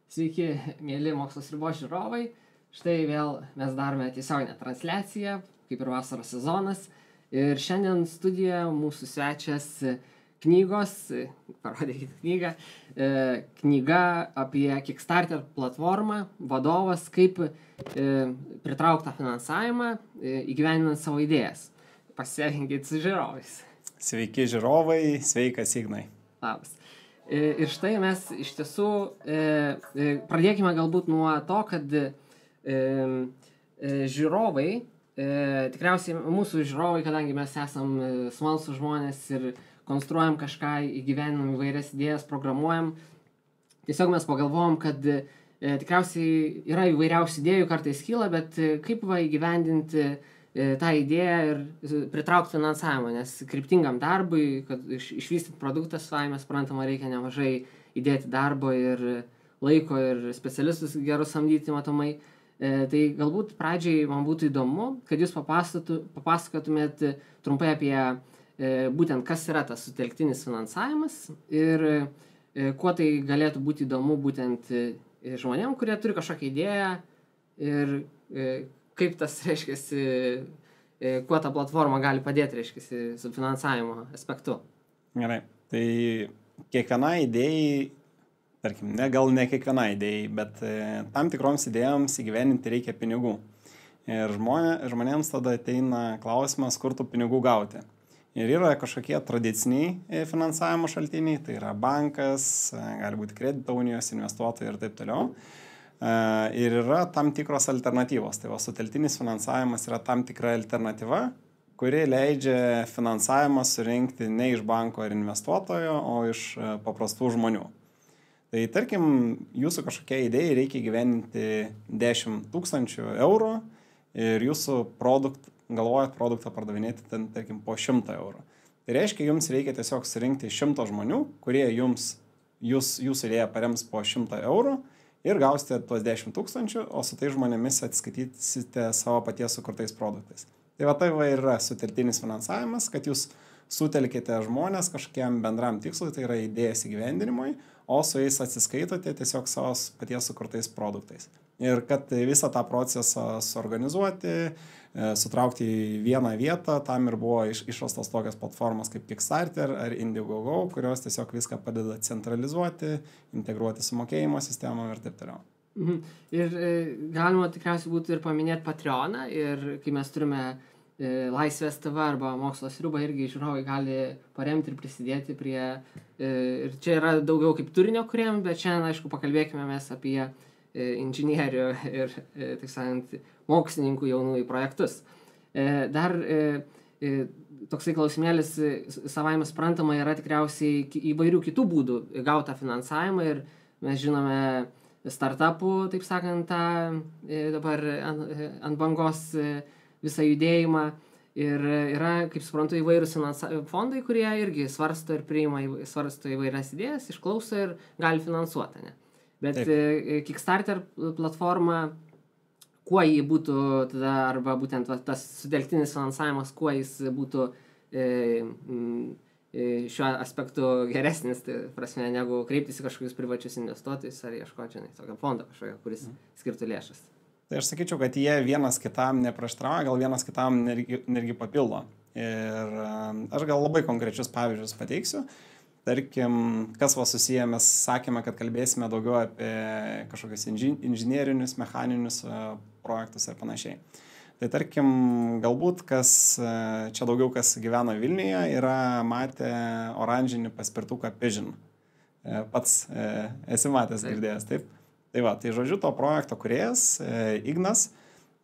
Sveiki, mėly Mokslo Sriubos žiūrovai. Štai vėl mes darome tiesioginę transliaciją, kaip ir vasaros sezonas. Ir šiandien studijoje mūsų svečias knygos, parodykite knygą, knyga apie Kickstarter platformą, vadovas, kaip pritraukti tą finansavimą, įgyvendinant savo idėjas. Pasisveikinkit su žiūrovais. Sveiki žiūrovai, sveikas Ignai. Labas. Ir štai mes iš tiesų pradėkime galbūt nuo to, kad žiūrovai, tikriausiai mūsų žiūrovai, kadangi mes esam smalsūs žmonės ir konstruojam kažką, įgyveninam įvairias idėjas, programuojam, tiesiog mes pagalvojom, kad tikriausiai yra įvairiausių idėjų, kartais kyla, bet kaip įgyvendinti tą idėją ir pritraukti finansavimą, nes kryptingam darbui, kad išvystyti produktą savai, mes suprantama, reikia nemažai įdėti darbo ir laiko ir specialistus gerus samdyti matomai. Tai galbūt pradžiai man būtų įdomu, kad jūs papasakotumėt trumpai apie būtent kas yra tas sutelktinis finansavimas ir kuo tai galėtų būti įdomu būtent žmonėm, kurie turi kažkokią idėją ir kaip tas, reiškiasi, kuo ta platforma gali padėti, reiškiasi, su finansavimo aspektu. Gerai, tai kiekvienai idėjai, tarkim, gal ne kiekvienai idėjai, bet tam tikroms idėjoms įgyveninti reikia pinigų. Ir žmonėms tada ateina klausimas, kur tų pinigų gauti. Ir yra kažkokie tradiciniai finansavimo šaltiniai, tai yra bankas, gali būti kredito unijos, investuotojai ir taip toliau. Ir yra tam tikros alternatyvos. Tai sutelktinis finansavimas yra tam tikra alternatyva, kuri leidžia finansavimą surinkti ne iš banko ar investuotojo, o iš paprastų žmonių. Tai tarkim, jūsų kažkokia idėja reikia įgyvendinti 10 000 eurų ir jūsų galvojat produktą pardavinėti ten, tarkim, po 100 eurų. Tai reiškia, jums reikia tiesiog surinkti 100 žmonių, kurie jūsų idėją parems po 100 eurų. Ir gausite tuos 10 000, o su tai žmonėmis atskaitysite savo paties sukurtais produktais. Tai yra sutelktinis finansavimas, kad jūs sutelkite žmonės kažkokiam bendram tikslui, tai yra idėjas įgyvendinimui, o su jais atsiskaitote tiesiog savo paties sukurtais produktais. Ir kad visą tą procesą suorganizuoti, sutraukti į vieną vietą, tam ir buvo išrastos tokios platformos kaip Kickstarter ar Indiegogo, kurios tiesiog viską padeda centralizuoti, integruoti su mokėjimo sistemom ir taip toliau. Ir galima tikriausiai būtų ir paminėti Patreoną, ir kai mes turime Laisvės TV arba Mokslo Sriubą, irgi žiūrovai gali paremti ir prisidėti prie, ir čia yra daugiau kaip turinio kuriem, bet šiandien, aišku, pakalbėkime mes apie inžinierių ir, taip sakant, mokslininkų jaunųjų projektus. Dar toksai klausimėlis savaime suprantama yra tikriausiai įvairių kitų būdų gautą finansavimą ir mes žinome startupų, taip sakant, dabar ant bangos visą judėjimą ir yra, kaip suprantu, įvairūs fondai, kurie irgi svarsto ir svarsto įvairias idėjas, išklauso ir gali finansuoti, ne? Bet Kickstarter platforma, kuo jį būtų tada, arba būtent tas sutelktinis finansavimas, kuo jis būtų šiuo aspektu geresnis, tai prasme, negu kreiptis į kažkokius privačius investuotojus ar ieškoti, tokio fondo kažkokio, kuris skirtų lėšas. Tai aš sakyčiau, kad jie vienas kitam neprieštarauja, gal vienas kitam netgi papildo. Ir aš gal labai konkrečius pavyzdžius pateiksiu. Tarkim, kas susiję, mes sakėme, kad kalbėsime daugiau apie kažkokius inžinierinius, mechaninius projektus ir panašiai. Tai tarkim, galbūt čia daugiau kas gyvena Vilniuje, yra matę oranžinį paspirtuką Pigeon. Pats esi matęs, girdėjęs, taip? Tai žodžiu, to projekto kūrėjas, Ignas,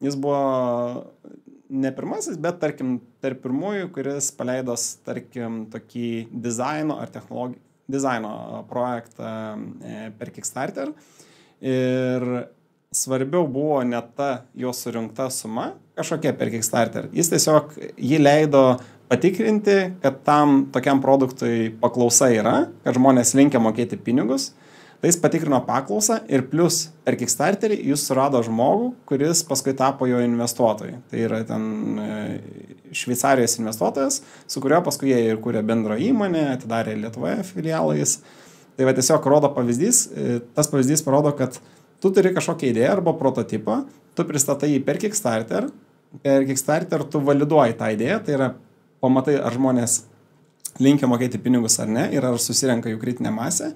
jis buvo ne pirmasis, bet tarkim, tarp pirmųjų, kuris paleidos, tarkim, tokį dizaino ar dizaino projektą per Kickstarter. Ir svarbiau buvo ne ta jo surinkta suma, kažkokia per Kickstarter. Jis tiesiog jį leido patikrinti, kad tam tokiam produktui paklausa yra, kad žmonės linkia mokėti pinigus. Tai jis patikrino paklausą ir plus per Kickstarterį jis surado žmogų, kuris paskui tapo jo investuotojai. Tai yra ten Šveicarijos investuotojas, su kurio paskui jie ir kūrė bendrą įmonę, atidarė Lietuvoje filialais. Tai va tiesiog rodo pavyzdys, tas pavyzdys parodo, kad tu turi kažkokią idėją arba prototipą, tu pristatai jį per Kickstarter tu validuoji tą idėją, tai yra pamatai, ar žmonės linkia mokėti pinigus ar ne, ir ar susirenka jų kritinė masė.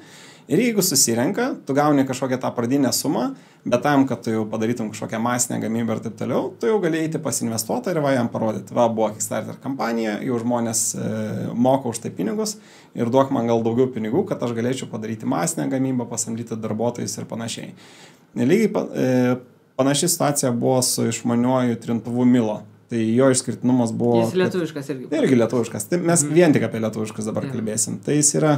Ir jeigu susirenka, tu gauni kažkokią tą pradinę sumą, bet tam, kad tu jau padarytum kažkokią masinę gamybą ir taip toliau, tu jau gali eiti pas investuotą ir va jam parodyti. Va, buvo Kickstarter kampanija, jau žmonės moka už tai pinigus ir duok man gal daugiau pinigų, kad aš galėčiau padaryti masinę gamybą, pasamdyti darbuotojus ir panašiai. Lygiai panaši situacija buvo su išmaniuoju trintuvu Milo. Tai jo išskirtinumas buvo... Jis lietuviškas irgi. Irgi lietuviškas. Tai mes vien tik apie lietuviškus dabar kalbėsim. Tai jis yra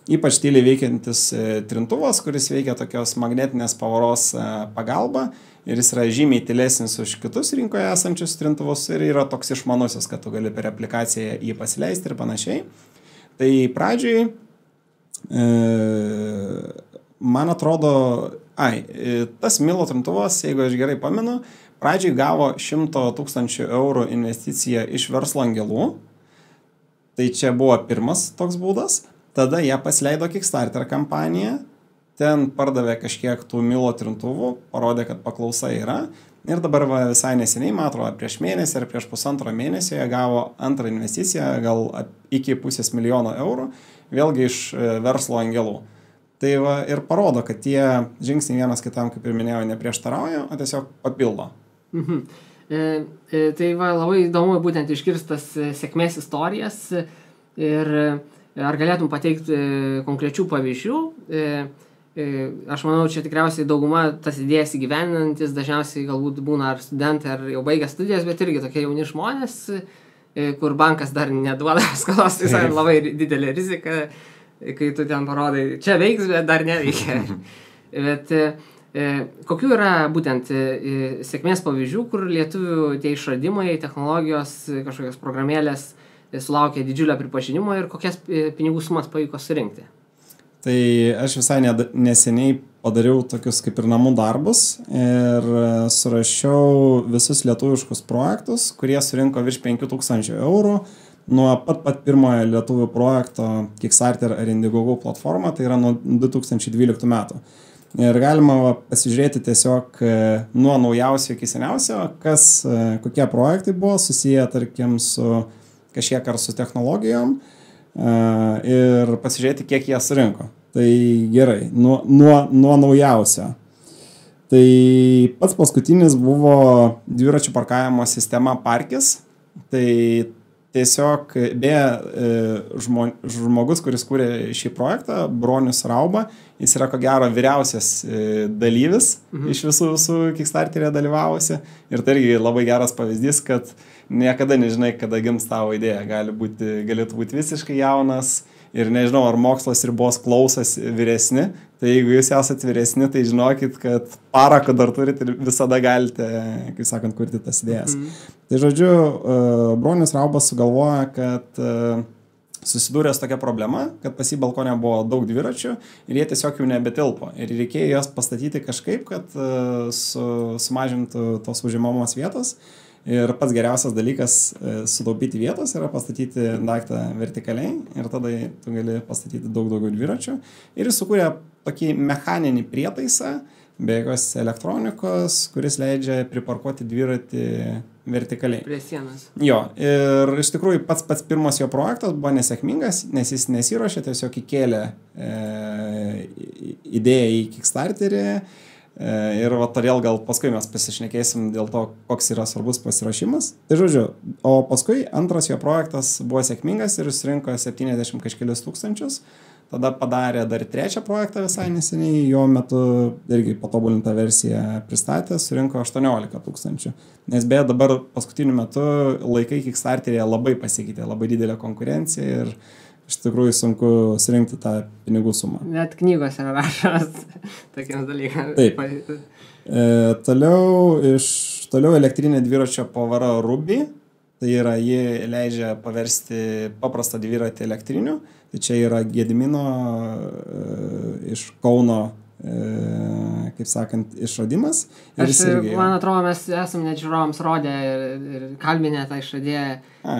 ypač tyliai veikiantis trintuvas, kuris veikia tokios magnetinės pavaros pagalba. Ir jis yra žymiai tylesnis už kitus rinkoje esančius trintuvus. Ir yra toks išmanusis, kad tu gali per aplikaciją jį pasileisti ir panašiai. Tai pradžiai, man atrodo... tas Milo trintuvas, jeigu aš gerai pamenu, pradžiai gavo 100 000 eurų investiciją iš verslo angelų. Tai čia buvo pirmas toks būdas. Tada jie pasileido Kickstarter kampaniją. Ten pardavė kažkiek tų Milo trintuvų, parodė, kad paklausa yra. Ir dabar visai neseniai, man atrodo, prieš mėnesį ar prieš pusantro mėnesio jie gavo antrą investiciją, gal iki 500 000 eurų, vėlgi iš verslo angelų. Tai va, ir parodo, kad tie žingsniai vienas kitam, kaip ir minėjau, neprieštarauja, o tiesiog papildo. Tai va, labai įdomu būtent iškirstas sėkmės istorijas ir ar galėtum pateikti konkrečių pavyzdžių. Aš manau, čia tikriausiai dauguma tas idėjas įgyveninantis, dažniausiai galbūt būna ar studentai, ar jau baigę studijas, bet irgi tokie jauni žmonės, kur bankas dar neduoda skolos, tai labai didelė rizika. Kai tu ten parodai, čia veiks, bet dar neveikia. Bet kokių yra būtent sėkmės pavyzdžių, kur lietuvių tie išradimai, technologijos, kažkokios programėlės sulaukė didžiulio pripažinimo ir kokias pinigų sumas pavyko surinkti? Tai aš visai neseniai padariau tokius kaip ir namų darbus ir surašiau visus lietuviškus projektus, kurie surinko virš 5000 eurų. Nuo pat pirmojo lietuvių projekto Kickstarter ar Indiegogo platforma, tai yra nuo 2012 metų. Ir galima pasižiūrėti tiesiog nuo naujausio iki seniausio, kokie projektai buvo susiję, tarkim, su kažkiek ar su technologijom ir pasižiūrėti, kiek jie surinko. Tai gerai, nuo naujausio. Tai pats paskutinis buvo dviračių parkavimo sistema Parkis. Tai tiesiog, žmogus, kuris kūrė šį projektą, Bronius Rauba, jis yra ko gero vyriausias dalyvis iš visų Kickstarter'e dalyvavusi. Ir tai irgi labai geras pavyzdys, kad niekada nežinai, kada gims tavo idėja. Galėtų būti visiškai jaunas ir nežinau, ar mokslas ribos klausas vyresni. Tai jeigu jūs esate vyresni, tai žinokit, kad parako dar turite ir visada galite, kaip sakant, kurti tas idėjas. Tai žodžiu, Bronius Raubas sugalvoja, kad susidūrė su tokia problema, kad pas jį balkone buvo daug dviračių ir jie tiesiog jau nebetilpo. Ir reikėjo jas pastatyti kažkaip, kad sumažintų tos užimamos vietos. Ir pats geriausias dalykas sutaupyti vietos yra pastatyti daiktą vertikaliai ir tada tu gali pastatyti daug daugiau dviračių. Ir jis sukūrė tokį mechaninį prietaisą, be jokios elektronikos, kuris leidžia priparkuoti dviratį vertikaliai. Prie sienos. Jo, ir iš tikrųjų pats pirmas jo projektas buvo nesėkmingas, nes jis nesiruošė, tiesiog įkėlė idėją į Kickstarterį. Ir va, todėl gal paskui mes pasišnekėsim dėl to, koks yra svarbus pasiruošimas. Tai žodžiu, o paskui antras jo projektas buvo sėkmingas ir jis rinko 70 kažkelius tūkstančius. Tada padarė dar trečią projektą visai neseniai, jo metu irgi patobulintą versiją pristatė, surinko 18 000. Nes beje dabar paskutiniu metu laikai Kickstarter'e labai pasikeitė, labai didelė konkurencija ir iš tikrųjų sunku surinkti tą pinigų sumą. Net knygos yra rašomas tokiems dalykams. Taip. Toliau elektrinė dviračio pavara Ruby. Tai yra, ji leidžia paversti paprastą dviratį elektriniu. Tai čia yra Gedimino iš Kauno, kaip sakant, išradimas. Man atrodo, mes esame net žiūrovams rodę ir kalbinę tą išradėją.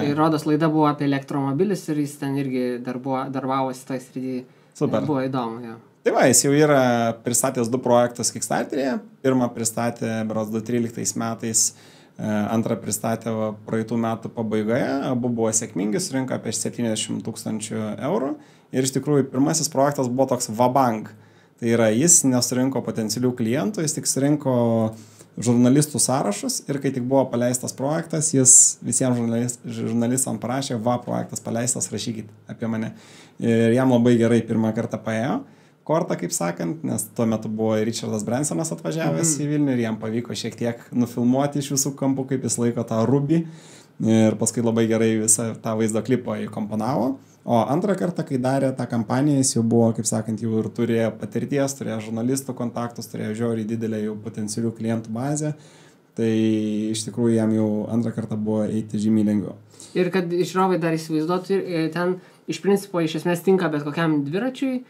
Ir rodos laida buvo apie elektromobilius ir jis ten irgi darbavosi toj srityje. Super. Buvo įdomu, jo. Tai va, jis jau yra pristatęs 2 projektus Kickstarter'e. Pirmą pristatė berods 2013 metais, antrą pristatė praeitų metų pabaigoje. Abu buvo sėkmingi, surinko apie 70 000 eurų. Ir iš tikrųjų pirmasis projektas buvo toks vabank. Tai yra, jis nesurinko potencialių klientų, jis tik surinko žurnalistų sąrašus ir kai tik buvo paleistas projektas, jis visiems žurnalistams parašė, projektas paleistas, rašykit apie mane. Ir jam labai gerai pirmą kartą paėjo kortą, kaip sakant, nes tuo metu buvo Richardas Bransonas atvažiavęs į Vilnių ir jam pavyko šiek tiek nufilmuoti iš visų kampų, kaip jis laiko tą rubį. Ir paskui labai gerai visą tą vaizdo klipą įkomponavo. O antrą kartą, kai darė tą kampaniją, jis jau buvo, kaip sakant, jau ir turėjo patirties, turėjo žurnalistų kontaktus, turėjo žiauriai didelę jau potencialių klientų bazę. Tai iš tikrųjų jam jau antrą kartą buvo eiti žymiai lengviau. Ir kad žiūrovai dar įsivaizduotų, ten iš principo iš esmės tinka bet kokiam dviračiui,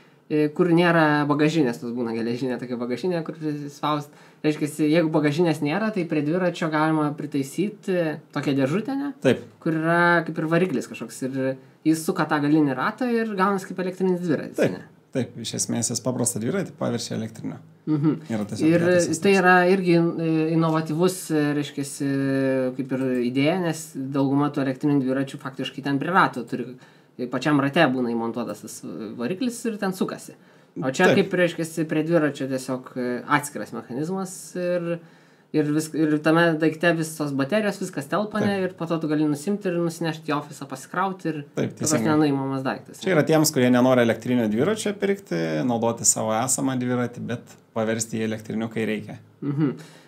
kur nėra bagažinės, tas būna geležinė tokia bagažinė, kur spaust. Reiškia, jeigu bagažinės nėra, tai prie dviračio galima pritaisyti tokią dėžutę, ne? Taip. Kur yra kaip ir variklis kažkoks ir jis suka tą galinį ratą ir gaunas kaip elektrinis dviratis. Taip, taip, iš esmės jis paprastą dviratį paverčia elektrinio. Ir tai yra irgi inovatyvus, reiškia, kaip ir idėja, nes dauguma tų elektrinių dviračių faktiškai ten prie rato turi. Pačiam rate būna įmontuotas tas variklis ir ten sukasi. O čia kaip, reiškia, prie dviračio tiesiog atskiras mechanizmas ir tame daikte visos baterijos, viskas telpane ir po to tu gali nusimti ir nusinešti į ofisą, pasikrauti ir tas nenuimamas daiktas. Čia yra tiems, kurie nenori elektrinio dviračio pirkti, naudoti savo esamą dviratį, bet paversti į elektrinių, kai reikia.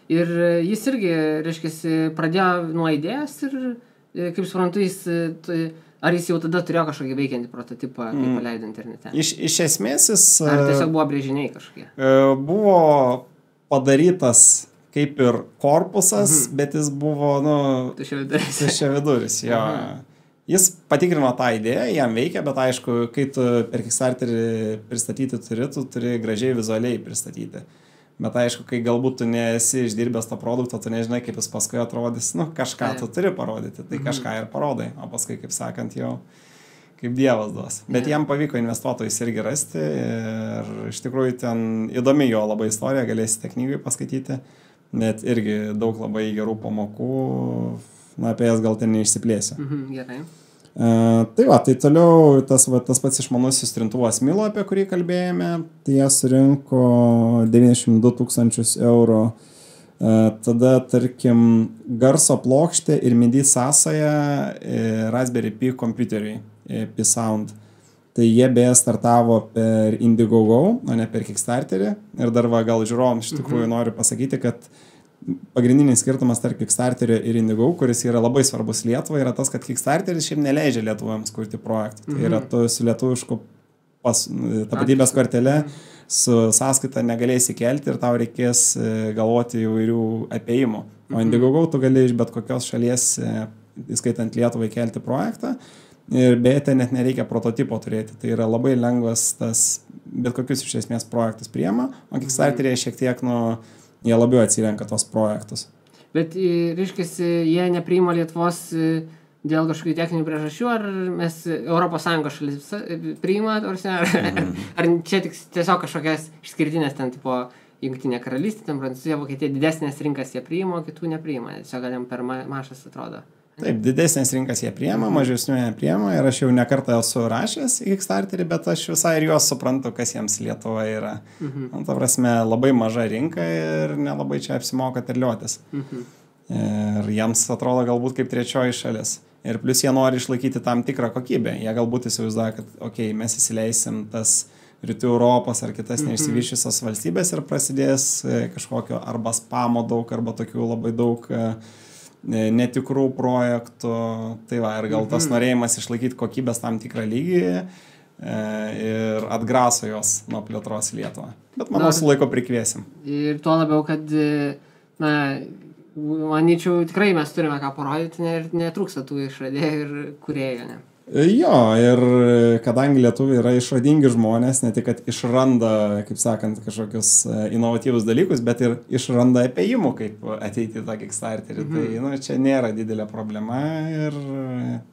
Ir jis irgi, reiškia, pradėjo nuo idėjos ir, kaip suprantu, ar jis jau tada turėjo kažkokį veikiantį prototipą, kai paleido internete? Iš esmės jis... Ar tiesiog buvo brėžiniai kažkokie? Buvo padarytas kaip ir korpusas, bet jis buvo, tuščiaviduris. Jis patikrino tą idėją, jam veikia, bet aišku, kai tu per Kickstarterį pristatyti turi gražiai vizualiai pristatyti. Bet aišku, kai galbūt tu nesi išdirbęs to produkto, tu nežinai, kaip jis paskui atrodys, kažką tu turi parodyti, tai kažką ir parodai, o paskui, kaip sakant, jau kaip dievas duos. Bet jam pavyko investuotojus irgi rasti ir iš tikrųjų ten įdomi jo labai istorija, galėsite knygai paskaityti, bet irgi daug labai gerų pamokų, apie jas gal ten neišsiplėsiu. Gerai. Tai toliau tas pats išmanusis trintuvas Milo, apie kurį kalbėjome, tai jie surinko 92 000 eurų. Tada, tarkim, garso plokštė ir MIDI sąsaja Raspberry Pi kompiuteriui, Pi Sound. Tai jie beje startavo per Indiegogo, o ne per Kickstarterį. Ir dar gal žiūrovams iš tikrųjų noriu pasakyti, kad pagrindinis skirtumas tarp Kickstarterio ir Indiegogo, kuris yra labai svarbus Lietuvai, yra tas, kad Kickstarteris šiaip neleidžia lietuvams kurti projektų. Tai yra tu su lietuvišku tapatybės kortele su sąskaita negalėsi kelti ir tau reikės galvoti įvairių apėjimų. O Indiegogo tu gali iš bet kokios šalies, įskaitant Lietuvai, kelti projektą ir beje, net nereikia prototipo turėti. Tai yra labai lengvas tas bet kokius iš esmės projektus priema, o Kickstarterėje šiek tiek jie labiau atsirenka tos projektus. Bet, reiškia, jie nepriima Lietuvos dėl kažkokių techninių priežasčių, ar mes ES šalis priima, ar čia tiesiog kažkokias išskirtinės ten tipo Jungtinė karalystė, ten Prancūzija, Vokietija, didesnės rinkas jie priima, o kitų nepriima. Tiesiog gal jam per mažas atrodo. Taip, didesnės rinkas jie priema, mažesnių nepriema ir aš jau nekartą esu rašęs į Kickstarterį, bet aš visai ir juos suprantu, kas jiems Lietuva yra. Ta prasme, labai maža rinka ir nelabai čia apsimoka terliotis. Ir jiems atrodo galbūt kaip trečioji šalis. Ir plus jie nori išlaikyti tam tikrą kokybę. Jie galbūt įsivaizduoja, kad mes įsileisim tas Rytų Europos ar kitas neišsivyščiusios valstybės ir prasidės kažkokio arba spamo daug, arba tokių labai daug netikrų projektų, tai ir gal tas norėjimas išlaikyti kokybės tam tikrą lygį ir atgraso jos nuo plėtros Lietuvą. Bet manau, su laiko prikviesim. Ir tuo labiau, kad manyčiau, tikrai mes turime ką parodyti ir netrūksta tų išradėjų ir kūrėjų, ne? Jo, ir kadangi lietuviai yra išradingi žmonės, ne tik, kad išranda, kaip sakant, kažkokius inovatyvus dalykus, bet ir išranda apėjimų, kaip ateiti į tą Kickstarterį. Tai čia nėra didelė problema ir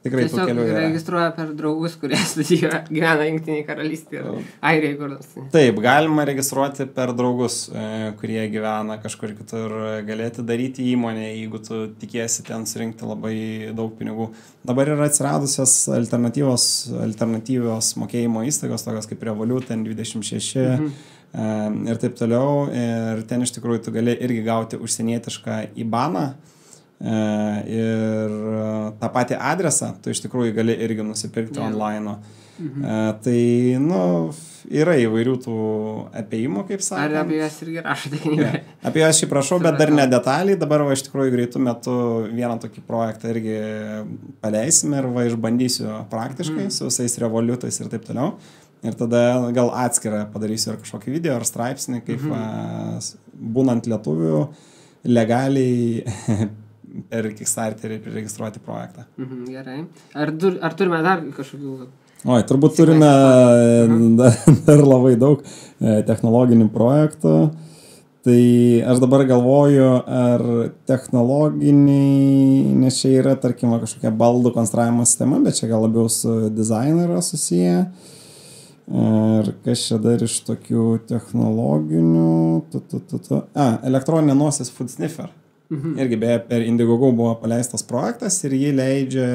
tikrai tų kelių yra. Tiesiog registruoja per draugus, kurie studijuoja, gyvena Jungtinėje karalystėje ir Airijoje kur nors. Taip, galima registruoti per draugus, kurie gyvena kažkur kitur, galėti daryti įmonę, jeigu tu tikiesi ten surinkti labai daug pinigų. Dabar yra atsiradusios alternatyvios mokėjimo įstaigos, tokios kaip Revolut, N26 ir taip toliau. Ir ten iš tikrųjų tu gali irgi gauti užsienietišką IBANą ir tą patį adresą tu iš tikrųjų gali irgi nusipirkti online. Tai, yra įvairių tų apėjimų, kaip sakant. Ar apie jas irgi rašote knygoje? Apie jas šį prašau, bet dar ne detaliai. Dabar iš tikrųjų greitų metų vieną tokį projektą irgi paleisime ir išbandysiu praktiškai su visais Revolutais ir taip toliau. Ir tada gal atskirą padarysiu ir kažkokį video ar straipsnį, kaip būnant lietuvių legaliai per Kickstarterį registruoti projektą. Gerai. Ar turime dar kažkokių... Turbūt turime dar labai daug technologinių projektų. Tai aš dabar galvoju, ar technologiniai, nes čia yra, tarkim, kažkokia baldų konstravimo sistema, bet čia gal labiau su dizainu yra susiję. Ir kas čia dar iš tokių technologinių... Elektroninė nosis Food Sniffer. Irgi beje per Indiegogo buvo paleistas projektas ir jį leidžia...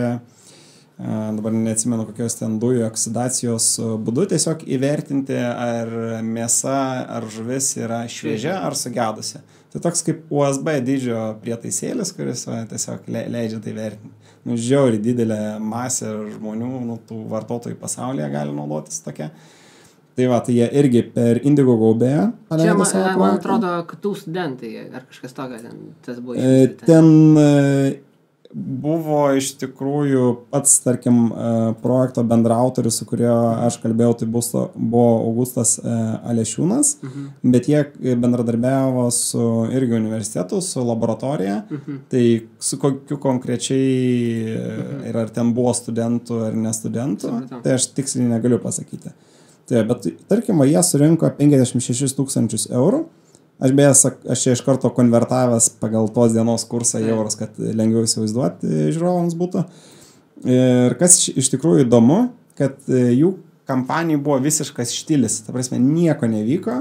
dabar neatsimenu kokios ten dujų oksidacijos būdu, tiesiog įvertinti, ar mėsa ar žuvis yra šviežia ar sugedusi. Tai toks kaip USB dydžio prietaisėlis, kuris tiesiog leidžia tai vertinti. Žiauriai didelė masė žmonių, tų vartotojų pasaulyje gali naudotis tokia. Tai tai jie irgi per Indiegogo beje paleido savo projektą. Man atrodo, KTU studentai ar kažkas tokio tas buvo išvystyta. Ten buvo iš tikrųjų pats, tarkim, projekto bendraautorius, su kurio aš kalbėjau, tai buvo Augustas Alešiūnas, bet jie bendradarbiavo su irgi universitetu, su laboratorija, tai su kokiu konkrečiai ir ar ten buvo studentų ar nestudentų, tai aš tiksliai negaliu pasakyti. Tai, bet tarkim, jie surinko 56 000 eurų. Aš čia iš karto konvertavęs pagal tos dienos kursą į eurus, kad lengviau įsivaizduoti žiūrovams būtų. Ir kas iš tikrųjų įdomu, kad jų kampanijai buvo visiškas štilis. Ta prasme, nieko nevyko.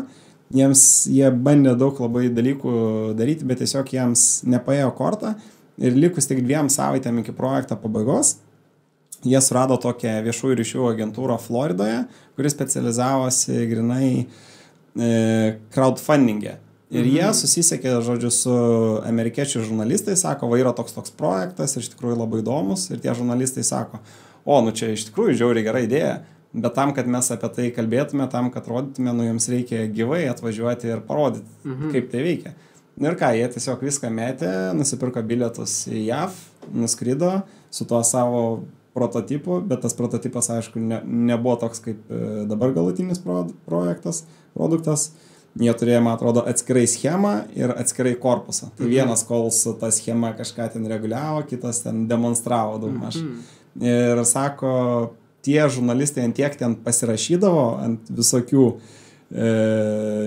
Jie bandė daug labai dalykų daryti, bet tiesiog jiems nepaėjo kortą. Ir likus tik 2 savaitėm iki projekto pabaigos, jie surado tokią viešųjų ryšių agentūrą Floridoje, kuri specializavosi grinai crowdfunding'e. Ir jie susisiekė, žodžiu, su amerikiečių žurnalistais, sako, yra toks projektas ir iš tikrųjų labai įdomus. Ir tie žurnalistai sako, čia iš tikrųjų žiauriai gera idėja, bet tam, kad mes apie tai kalbėtume, tam, kad rodytume, jums reikia gyvai atvažiuoti ir parodyti, kaip tai veikia. Ir ką, jie tiesiog viską metė, nusipirko bilietus į JAV, nuskrido su tuo savo prototipu, bet tas prototipas, aišku, nebuvo toks kaip dabar galutinis produktas. Jie turėjo, man atrodo, atskirai schemą ir atskirai korpusą. Tai vienas, kol su ta schema kažką ten reguliavo, kitas ten demonstravo daugmaž. Ir sako, tie žurnalistai ant tiek ten pasirašydavo ant visokių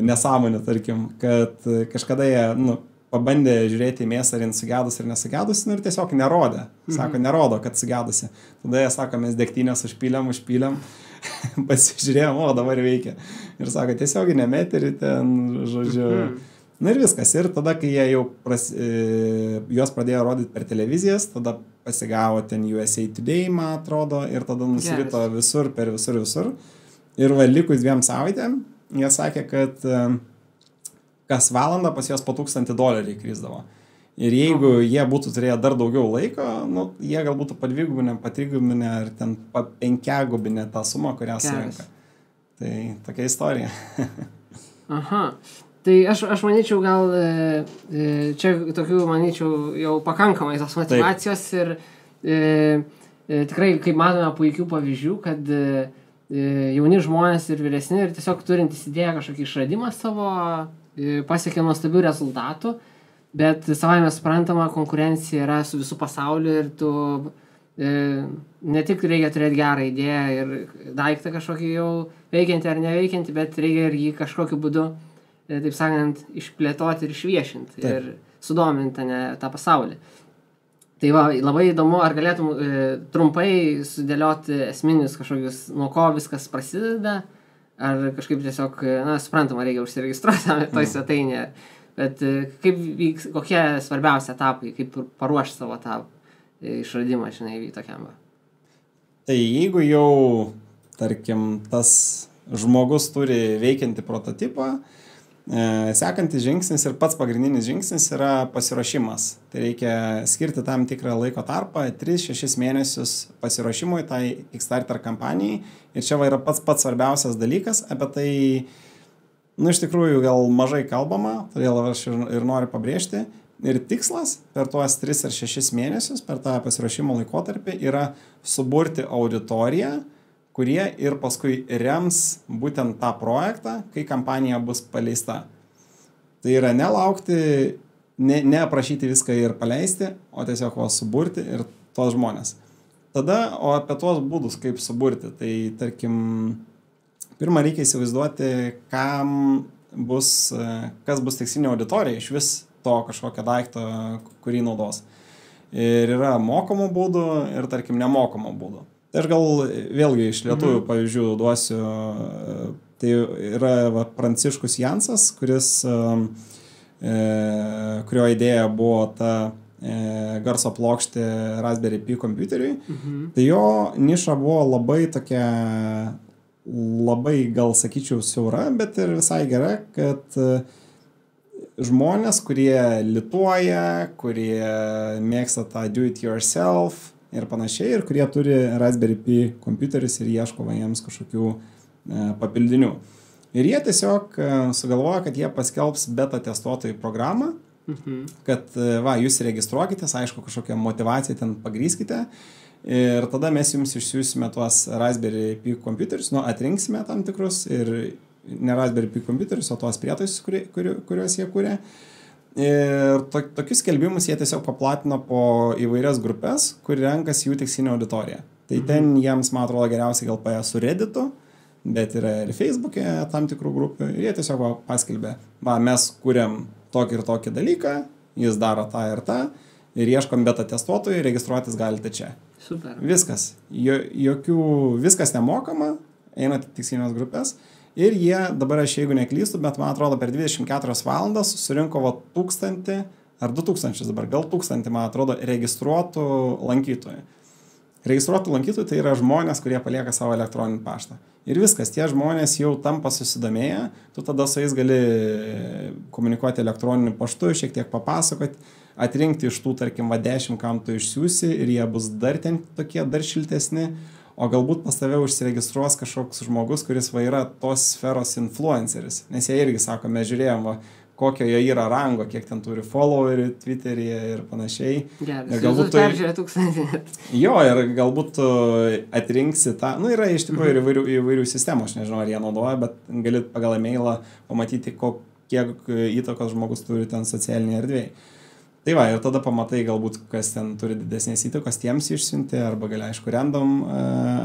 nesąmonių, tarkim, kad kažkada jie pabandė žiūrėti į mėsą, ar jin sugedusi ir nesugedusi, ir tiesiog nerodė. Sako, nerodo, kad sugedusi. Tada jie sako, mes degtinės užpylėm, pasižiūrėjom, dabar veikia. Ir sako, tiesiog nemeterį ten, žodžiu. Ir viskas. Ir tada, kai jie jau juos pradėjo rodyti per televizijas, tada pasigavo ten USA Today, man atrodo, ir tada nusirito visur, per visur. Ir likus 2 savaitėm, jie sakė, kad kas valandą pas juos po $1000 krisdavo. Ir jeigu jie būtų turėję dar daugiau laiko, jie gal būtų padvigubinę, patrigubinę ar ten 5-gubinę tą sumą, kurią surinka. Tai tokia istorija. Aha. Tai aš manyčiau, gal čia tokių, manyčiau, jau pakankamai tos motivacijos. Taip. Ir tikrai, kaip matome, puikių pavyzdžių, kad jauni žmonės ir vyresni ir tiesiog turintys idėją kažkokį išradimą savo pasiekė nuostabių rezultatų. Bet savai mes suprantama, konkurencija yra su visų pasauliu ir tu ne tik reikia turėti gerą idėją ir daiktą kažkokį jau veikiantį ar neveikiantį, bet reikia ir jį kažkokiu būdu, taip sakant, išplėtoti ir išviešinti ir sudominti tą pasaulį. Tai va, labai įdomu, ar galėtum trumpai sudėlioti esminius kažkokius, nuo ko viskas prasideda, ar kažkaip tiesiog, suprantama, reikia užsiregistruoti toj svetainėje, bet kaip vyks, kokie svarbiausi etapai, kaip paruošti savo tą išradimą, tokiam. Tai jeigu jau, tarkim, tas žmogus turi veikiantį prototipą, sekantis žingsnis ir pats pagrindinis žingsnis yra pasiruošimas. Tai reikia skirti tam tikrą laiko tarpą, 3-6 mėnesius pasiruošimui tai Kickstarter kampanijai. Ir čia yra pats svarbiausias dalykas, apie tai, iš tikrųjų gal mažai kalbama, todėl aš ir noriu pabrėžti. Ir tikslas per tuos 3 ar 6 mėnesius, per tą pasiruošimo laikotarpį, yra suburti auditoriją, kurie ir paskui rems būtent tą projektą, kai kampanija bus paleista. Tai yra nelaukti, neaprašyti viską ir paleisti, o tiesiog suburti ir tos žmonės. Tada, o apie tuos būdus, kaip suburti, tai tarkim, pirmą reikia įsivaizduoti, kas bus tikslinė auditorija iš vis to kažkokio daikto, kurį naudos. Ir yra mokamų būdų ir, tarkim, nemokamų būdų. Tai aš gal vėlgi iš lietuvių pavyzdžių duosiu, tai yra Pranciškus Jansas, kurio idėja buvo ta garso plokštė Raspberry Pi kompiuteriui. Tai jo niša buvo labai tokia, labai gal sakyčiau siaura, bet ir visai gera, kad žmonės, kurie lituoja, kurie mėgsta tą do it yourself ir panašiai, ir kurie turi Raspberry Pi kompiuterius ir ieško jiems kažkokių papildinių. Ir jie tiesiog sugalvoja, kad jie paskelbs beta testuotojų programą, kad jūs registruokitės, aišku, kažkokią motivaciją ten pagrįskite, ir tada mes jums išsiųsime tuos Raspberry Pi kompiuterius, atrinksime tam tikrus, ir ne Raspberry Pi kompiuterius, o tuos prietaisus, kuriuos jie kūrė. Ir tokius skelbimus jie tiesiog paplatino po įvairias grupės, kur renkasi jų tikslinė auditorija. Tai ten jiems, man atrodo, geriausiai gal paėjo su Redditu, bet yra ir Facebook'e tam tikrų grupių. Ir jie tiesiog paskelbė, mes kūrėm tokį ir tokį dalyką, jis daro tą ir tą, ir ieškom beta testuotojų, registruotis galite čia. Super. Viskas. Viskas nemokama, einate tikslinės grupės. Ir jie, dabar aš jeigu neklystu, bet man atrodo per 24 valandas surinko 1000 ar 2000 dabar, gal 1000, man atrodo, registruotų lankytojų. Registruotų lankytojų tai yra žmonės, kurie palieka savo elektroninį paštą. Ir viskas, tie žmonės jau tampa susidomėję, tu tada su jais gali komunikuoti elektroniniu paštu, šiek tiek papasakoti, atrinkti iš tų, tarkim, 10, kam tu išsiųsi, ir jie bus dar ten tokie, dar šiltesni. O galbūt pas tave užsiregistruos kažkoks žmogus, kuris yra tos sferos influenceris. Nes jie irgi sako, mes žiūrėjom, kokio jie yra rango, kiek ten turi followerių Twitteryje ir panašiai. Gerai, galbūt tu peržiūrė 1000. Jo, ir galbūt tu atrinksi tą, yra iš tikrųjų įvairių sistemų, aš nežinau, ar jie naudoja, bet gali pagal e-mailą pamatyti, kiek įtakos žmogus turi ten socialinėje erdvėje. Tai va, ir tada pamatai galbūt, kas ten turi didesnės įtakos, tiems išsiunti, arba gali, aišku, random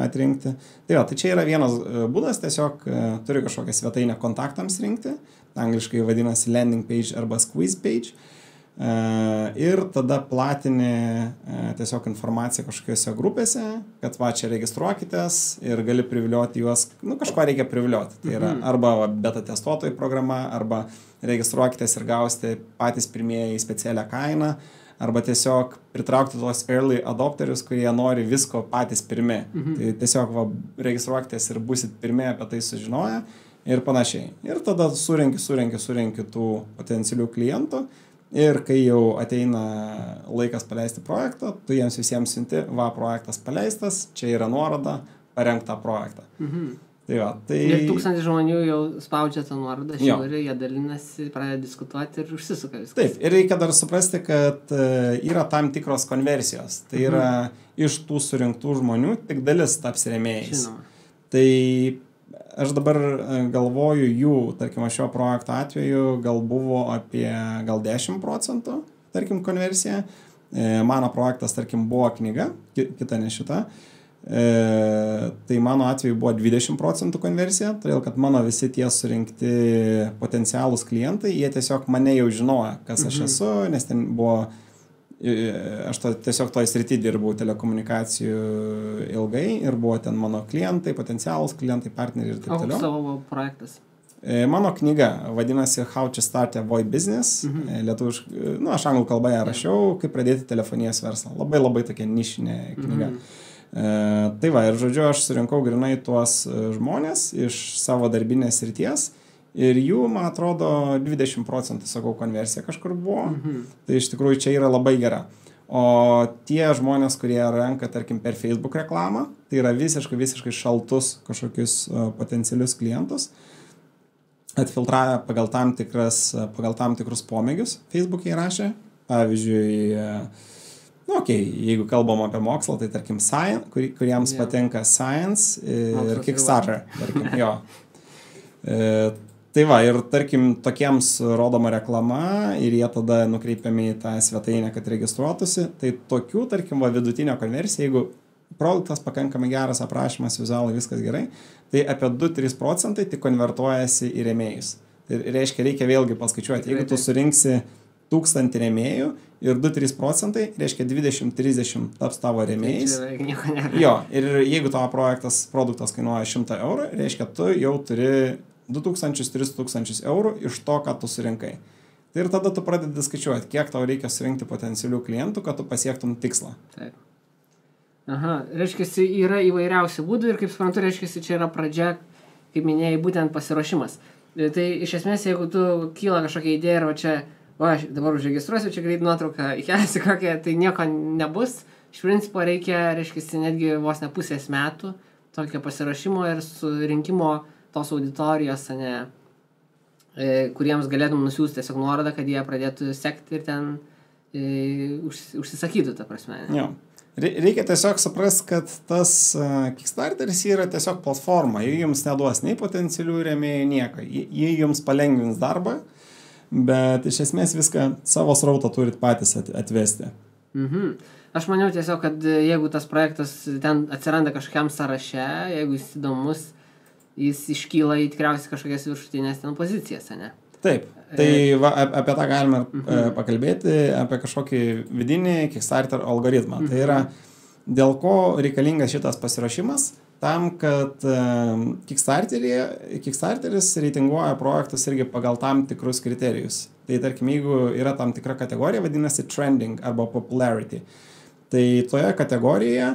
atrinkti. Tai va, tai čia yra vienas būdas, tiesiog turi kažkokią svetainę kontaktams rinkti, angliškai vadinasi landing page arba squeeze page, ir tada platini tiesiog informaciją kažkokiose grupėse, kad čia registruokitės ir gali privilioti juos, kažko reikia privilioti. Tai yra arba beta testuotojų programa, arba registruokitės ir gausite patys pirmieji specialią kainą, arba tiesiog pritraukti tuos early adopterius, kurie nori visko patys pirmi. Tai tiesiog registruokitės ir būsit pirmie apie tai sužinoję ir panašiai. Ir tada surenki tų potencialių klientų, ir kai jau ateina laikas paleisti projektą, tu jiems visiems siunti, projektas paleistas, čia yra nuoroda, parenk tą projektą. Tai va, tai... Ir 1000 žmonių jau spaudžia tą nuorodą, žiūri, jie dalinasi, pradeda diskutuoti ir užsisuka viskas. Taip, ir reikia dar suprasti, kad yra tam tikros konversijos. Tai yra iš tų surinktų žmonių tik dalis taps rėmėjais. Žinoma. Tai aš dabar galvoju jų, tarkim, šio projekto atveju gal buvo apie gal 10%, tarkim, konversija. Mano projektas, tarkim, buvo knyga, kita ne šita. Tai mano atveju buvo 20% konversija, todėl kad mano visi tie surinkti potencialūs klientai, jie tiesiog mane jau žinojo, kas aš esu, nes ten buvo, aš tiesiog toj srity dirbau telekomunikacijų ilgai ir buvo ten mano klientai, potencialūs klientai, partneriai ir taip toliau. O savo projektas? Mano knyga vadinasi How to Start a VoIP Business, lietuviškai, aš anglų kalboje rašiau, kaip pradėti telefonijos verslą. Labai labai tokia nišinė knyga. Tai va, ir žodžiu, aš surinkau grinai tuos žmonės iš savo darbinės srities ir jų, man atrodo, 20%, sakau, konversija kažkur buvo. Tai iš tikrųjų čia yra labai gera. O tie žmonės, kurie renka, tarkim, per Facebook reklamą, tai yra visiškai šaltus kažkokius potencialius klientus, atfiltravę pagal tam tikrus pomėgius Facebook'e įrašė. Pavyzdžiui, jeigu kalbam apie mokslą, tai tarkim kuriems patinka Science ir Kickstarter, tarkim, jo. Tai va, ir tarkim, tokiems rodoma reklama ir jie tada nukreipiami į tą svetainę, kad registruotųsi. Tai tokių, tarkim, vidutinio konversija, jeigu produktas pakankamai geras, aprašymas, vizualai, viskas gerai, tai apie 2-3% tik konvertuojasi į rėmėjus. Tai reiškia, reikia vėlgi paskaičiuoti. Jeigu tu surinksi 1000 rėmėjų ir 2-3%, reiškia 20-30 taps tavo rėmėjais. Jo, ir jeigu tavo produktas kainuoja 100 eurų, reiškia, tu jau turi 2000-3000 eurų iš to, ką tu surinkai. Tai ir tada tu pradedi skaičiuoti, kiek tau reikia surinkti potencialių klientų, kad tu pasiektum tikslą. Taip. Aha, reiškia, yra įvairiausių būdų ir kaip suprantu, reiškia, čia yra pradžia, kaip minėjai, būtent pasiruošimas. Tai iš esmės, jeigu tu kyla kažkokia idėja ir čia, aš dabar užregistruosiu, čia greit nuotrauką įkelsiu kokią, tai nieko nebus. Iš principo reikia, reiškia, netgi vos ne pusės metų tokio pasiruošimo ir surinkimo tos auditorijos, kuriems galėtum nusiųsti tiesiog nuorodą, kad jie pradėtų sekti ir ten užsisakytų, ta prasme. Jo. Reikia tiesiog suprast, kad tas Kickstarteris yra tiesiog platforma. Jie jums neduos nei potencialių rėmėjų, nieko. Jie jums palengvins darbą, bet iš esmės viską savo srautą turit patys atvesti. Aš maniau tiesiog, kad jeigu tas projektas ten atsiranda kažkokiam sąraše, jeigu jis įdomus, jis iškyla į tikriausiai kažkokias viršutinės ten pozicijas, ne? Taip, tai apie tą galime pakalbėti, apie kažkokį vidinį Kickstarter algoritmą. Tai yra, dėl ko reikalingas šitas pasiruošimas, tam, kad Kickstarteris reitinguoja projektus irgi pagal tam tikrus kriterijus. Tai tarkim, jeigu yra tam tikra kategorija, vadinasi trending arba popularity. Tai toje kategorijoje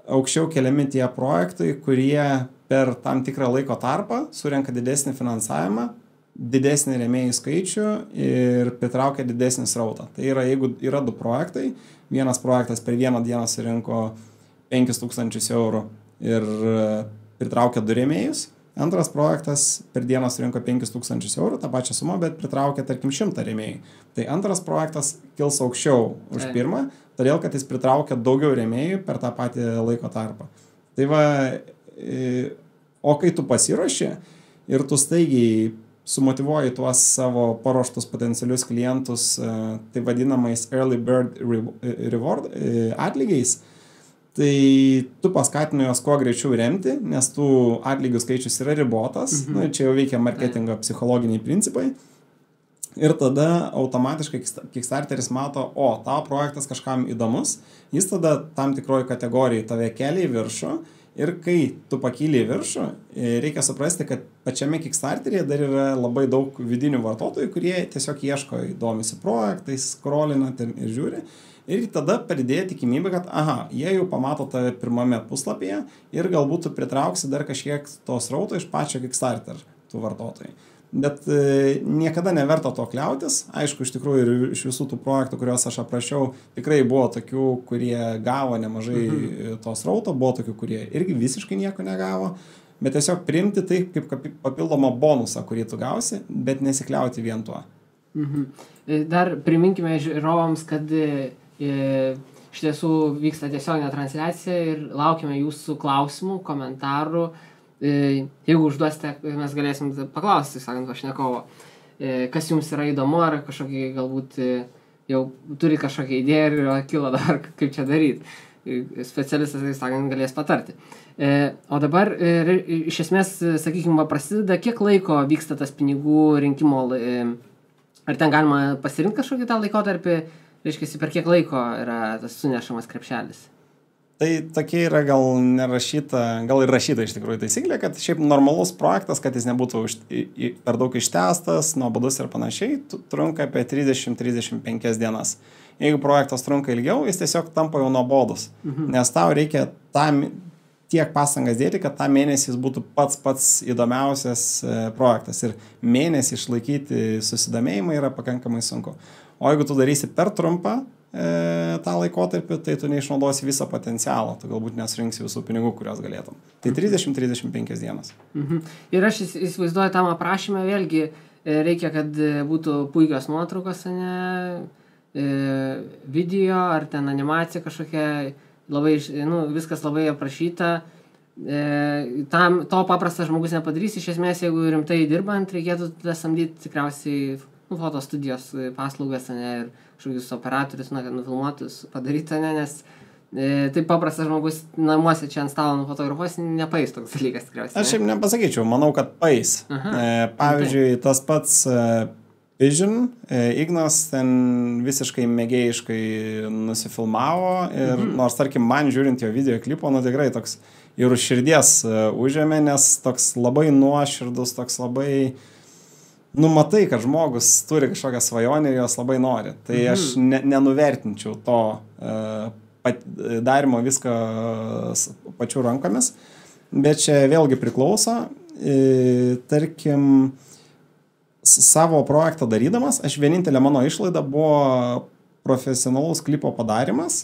aukščiau keliami tie projektai, kurie per tam tikrą laiko tarpą surenka didesnį finansavimą, didesnį rėmėjų skaičių ir pritraukia didesnį srautą. Tai yra, jeigu yra 2 projektai, vienas projektas per vieną dieną surinko 5000 eurų ir pritraukia 2 rėmėjus, antras projektas per dieną surinko 5000 eurų, tą pačią sumą, bet pritraukia, tarkim, 100 rėmėjų. Tai antras projektas kils aukščiau už pirmą, todėl, kad jis pritraukia daugiau rėmėjų per tą patį laiko tarpą. Tai va, o kai tu pasiruoši ir tu staigiai sumotyvuoji tuos savo paruoštus potencialius klientus, tai vadinamais early bird reward atlygiais, tai tu paskatini juos kuo greičiau remti, nes tų atlygių skaičius yra ribotas, čia jau veikia marketingo psichologiniai principai. Ir tada automatiškai Kickstarteris mato, tavo projektas kažkam įdomus, jis tada tam tikroji kategorijai tave kelia į viršų. Ir kai tu pakyli į viršų, reikia suprasti, kad pačiame Kickstarteryje dar yra labai daug vidinių vartotojų, kurie tiesiog ieško, domisi projektais, scrollina ir žiūri. Ir tada padidėja tikimybė, kad jie jau pamato tave pirmame puslapyje ir galbūt tu pritrauksi dar kažkiek to srauto iš pačio Kickstarter tų vartotojų. Bet niekada neverta to kliautis. Aišku, iš tikrųjų ir iš visų tų projektų, kuriuos aš aprašiau, tikrai buvo tokių, kurie gavo nemažai to srauto, buvo tokių, kurie irgi visiškai nieko negavo, bet tiesiog priimti tai kaip papildomą bonusą, kurį tu gausi, bet nesikliauti vien tuo. Dar priminkime žiūrovams, kad iš tiesų vyksta tiesioginė transliacija ir laukime jūsų klausimų, komentarų. jeigu užduosite, mes galėsim paklausti, sakant, pašnekovo, kas jums yra įdomu, ar kažkokį galbūt jau turi kažkokią idėją ir kilo dar, kaip čia daryti. Specialistas, tai sakant, galės patarti. O dabar, iš esmės, sakykime, prasideda, kiek laiko vyksta tas pinigų rinkimo, ar ten galima pasirinkti kažkokį tą laikotarpį, reiškia, per kiek laiko yra tas sunešamas krepšelis? Tai tokia yra gal nerašyta, gal ir rašyta iš tikrųjų taisyklė, kad šiaip normalus projektas, kad jis nebūtų per daug ištęstas, nuobodus ir panašiai, trunka apie 30-35 dienas. Jeigu projektas trunka ilgiau, jis tiesiog tampa jau nuobodus, nes tau reikia tiek pastangas dėti, kad tą mėnesį jis būtų pats įdomiausias projektas. Ir mėnesį išlaikyti susidomėjimą yra pakankamai sunku. O jeigu tu darysi per trumpą tą laikotarpį, tai tu neišnaudosi visą potencialą, tu galbūt nesurinksi visų pinigų, kurios galėtum. Tai 30-35 dienas. Ir aš įsivaizduoju tam aprašymę, vėlgi reikia, kad būtų puikios nuotraukos, video ar ten animacija kažkokia, labai, viskas labai aprašyta. To paprastas žmogus nepadarys, iš esmės, jeigu rimtai dirbant, reikėtų samdyti tikriausiai fotostudijos paslaugas, ir kažkokius operatorius, kad nufilmuotus padaryti, nes taip paprastas žmogus namuose čia ant stalo nufotografuos, nepais toks dalykas tikriausiai. Aš šiaip nepasakyčiau, manau, kad pais. Pavyzdžiui, tas pats Vision, Ignas ten visiškai mėgėjiškai nusifilmavo ir nors, tarkim, man žiūrint jo video klipo, tikrai toks ir už širdies užėmė, nes toks labai nuoširdus, toks labai matai, kad žmogus turi kažkokią svajonę ir jos labai nori. Tai aš nenuvertinčiau to darimo viską pačių rankomis, bet čia vėlgi priklauso. Tarkim, savo projektą darydamas, aš vienintelė mano išlaida buvo profesionalus klipo padarimas,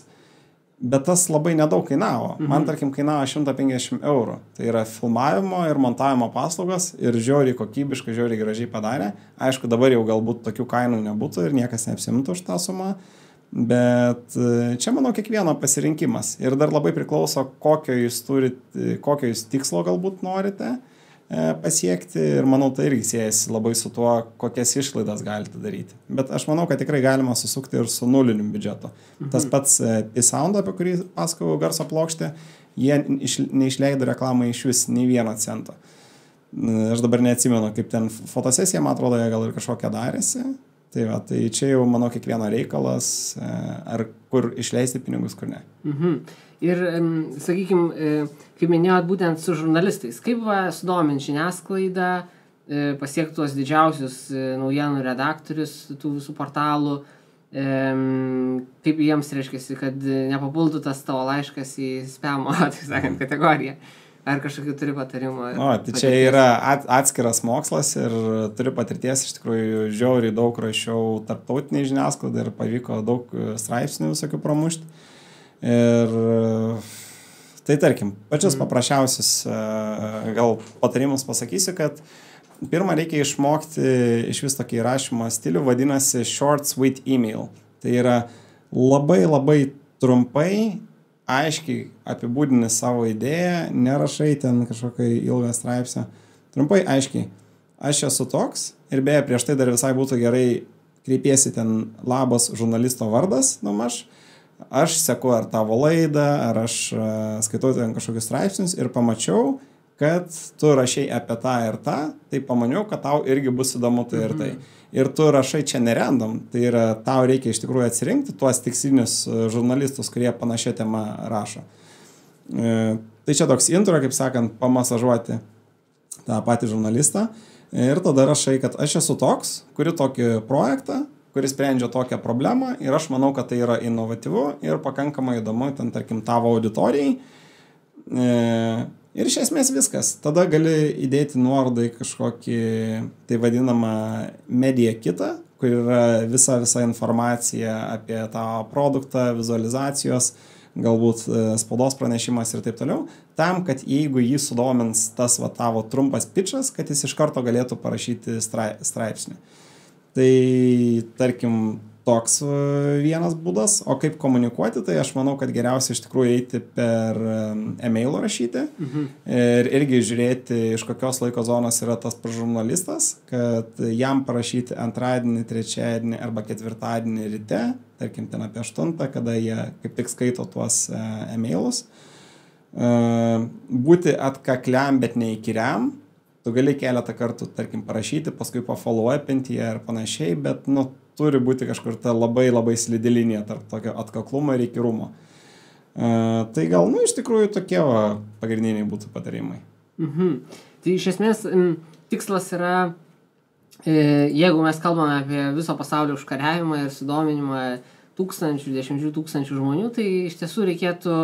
bet tas labai nedaug kainavo. Man, tarkim, kainavo 150 eurų. Tai yra filmavimo ir montavimo paslaugas ir žiauriai kokybiškai, žiauriai gražiai padarė. Aišku, dabar jau galbūt tokių kainų nebūtų ir niekas neapsimtų už tą sumą, bet čia, manau, kiekvieno pasirinkimas. Ir dar labai priklauso, kokio jūs tikslo galbūt norite pasiekti ir manau, tai irgi siejasi labai su tuo, kokias išlaidas galite daryti. Bet aš manau, kad tikrai galima susukti ir su nuliniu biudžetu. Tas pats P-Sound, apie kurį pasakojau, garso plokštė, jie neišleido reklamai iš vis nei 1 cento. Aš dabar neatsimenu, kaip ten fotosesija, man atrodo, jie gal ir kažkokią darėsi. Tai čia jau, manau, kiekvieno reikalas, ar kur išleisti pinigus, kur ne. Ir, sakykime, kaip minėjot, būtent su žurnalistais, kaip sudominti žiniasklaidą, pasiekti tuos didžiausius naujienų redaktorius tų visų portalų, kaip jiems reiškiasi, kad nepapultų tas tavo laiškas į spamo, taip sakant, kategoriją. Ar kažkokių turi patarimų? Tai čia yra atskiras mokslas ir turi patirties, iš tikrųjų žiauriai daug rašiau tarptautiniai žiniasklaidai ir pavyko daug straipsnių visokių pramušti. Ir tai, tarkim, pačius paprasčiausius gal patarimus pasakysiu, kad pirmą reikia išmokti iš vis tokį rašymo stilių, vadinasi short sweet email. Tai yra labai trumpai, aiškiai apibūdini savo idėją, nerašai ten kažkokią ilgą straipsnį. Trumpai, aiškiai, aš esu toks ir beje, prieš tai dar visai būtų gerai kreipiesi ten labas žurnalisto vardas, aš seku ar tavo laidą, ar aš skaitau ten kažkokius straipsnius ir pamačiau, kad tu rašai apie tą ir tą, tai pamaniau, kad tau irgi bus įdomu tai ir tai. Ir tu rašai čia nerandom, tai yra tau reikia iš tikrųjų atsirinkti tuos tikslinius žurnalistus, kurie panašią temą rašo. Tai čia toks intro, kaip sakant, pamasažuoti tą patį žurnalistą ir tada rašai, kad aš esu toks, kuri tokį projektą, kuris sprendžia tokią problemą ir aš manau, kad tai yra inovatyvu ir pakankamai įdomu, ten, tarkim, tavo auditorijai. Ir iš esmės viskas. Tada gali įdėti nuorodą į kažkokį, tai vadinamą media kitą, kur yra visa informacija apie tą produktą, vizualizacijos, galbūt spaudos pranešimas ir taip toliau, tam, kad jeigu jį sudomins tas tavo trumpas pitchas, kad jis iš karto galėtų parašyti straipsnį. Tai, tarkim, toks vienas būdas, o kaip komunikuoti, tai aš manau, kad geriausia iš tikrųjų eiti per e-mailo rašyti ir irgi žiūrėti, iš kokios laiko zonos yra tas žurnalistas, kad jam parašyti antradienį, trečiadienį arba ketvirtadienį ryte, tarkim ten apie 8, kada jie kaip tik skaito tuos e-mailus. Būti atkakliam, bet neįkyriam. Tu gali keletą kartų, tarkim, parašyti, paskui pafollow-upinti ir panašiai, bet, turi būti kažkur ta labai slidi linija tarp tokio atkaklumo ir įkyrumo. Tai gal, iš tikrųjų tokie pagrindiniai būtų patarimai. Tai iš esmės tikslas yra, jeigu mes kalbame apie viso pasaulio užkariavimą ir sudominimą 10,000 žmonių, tai iš tiesų reikėtų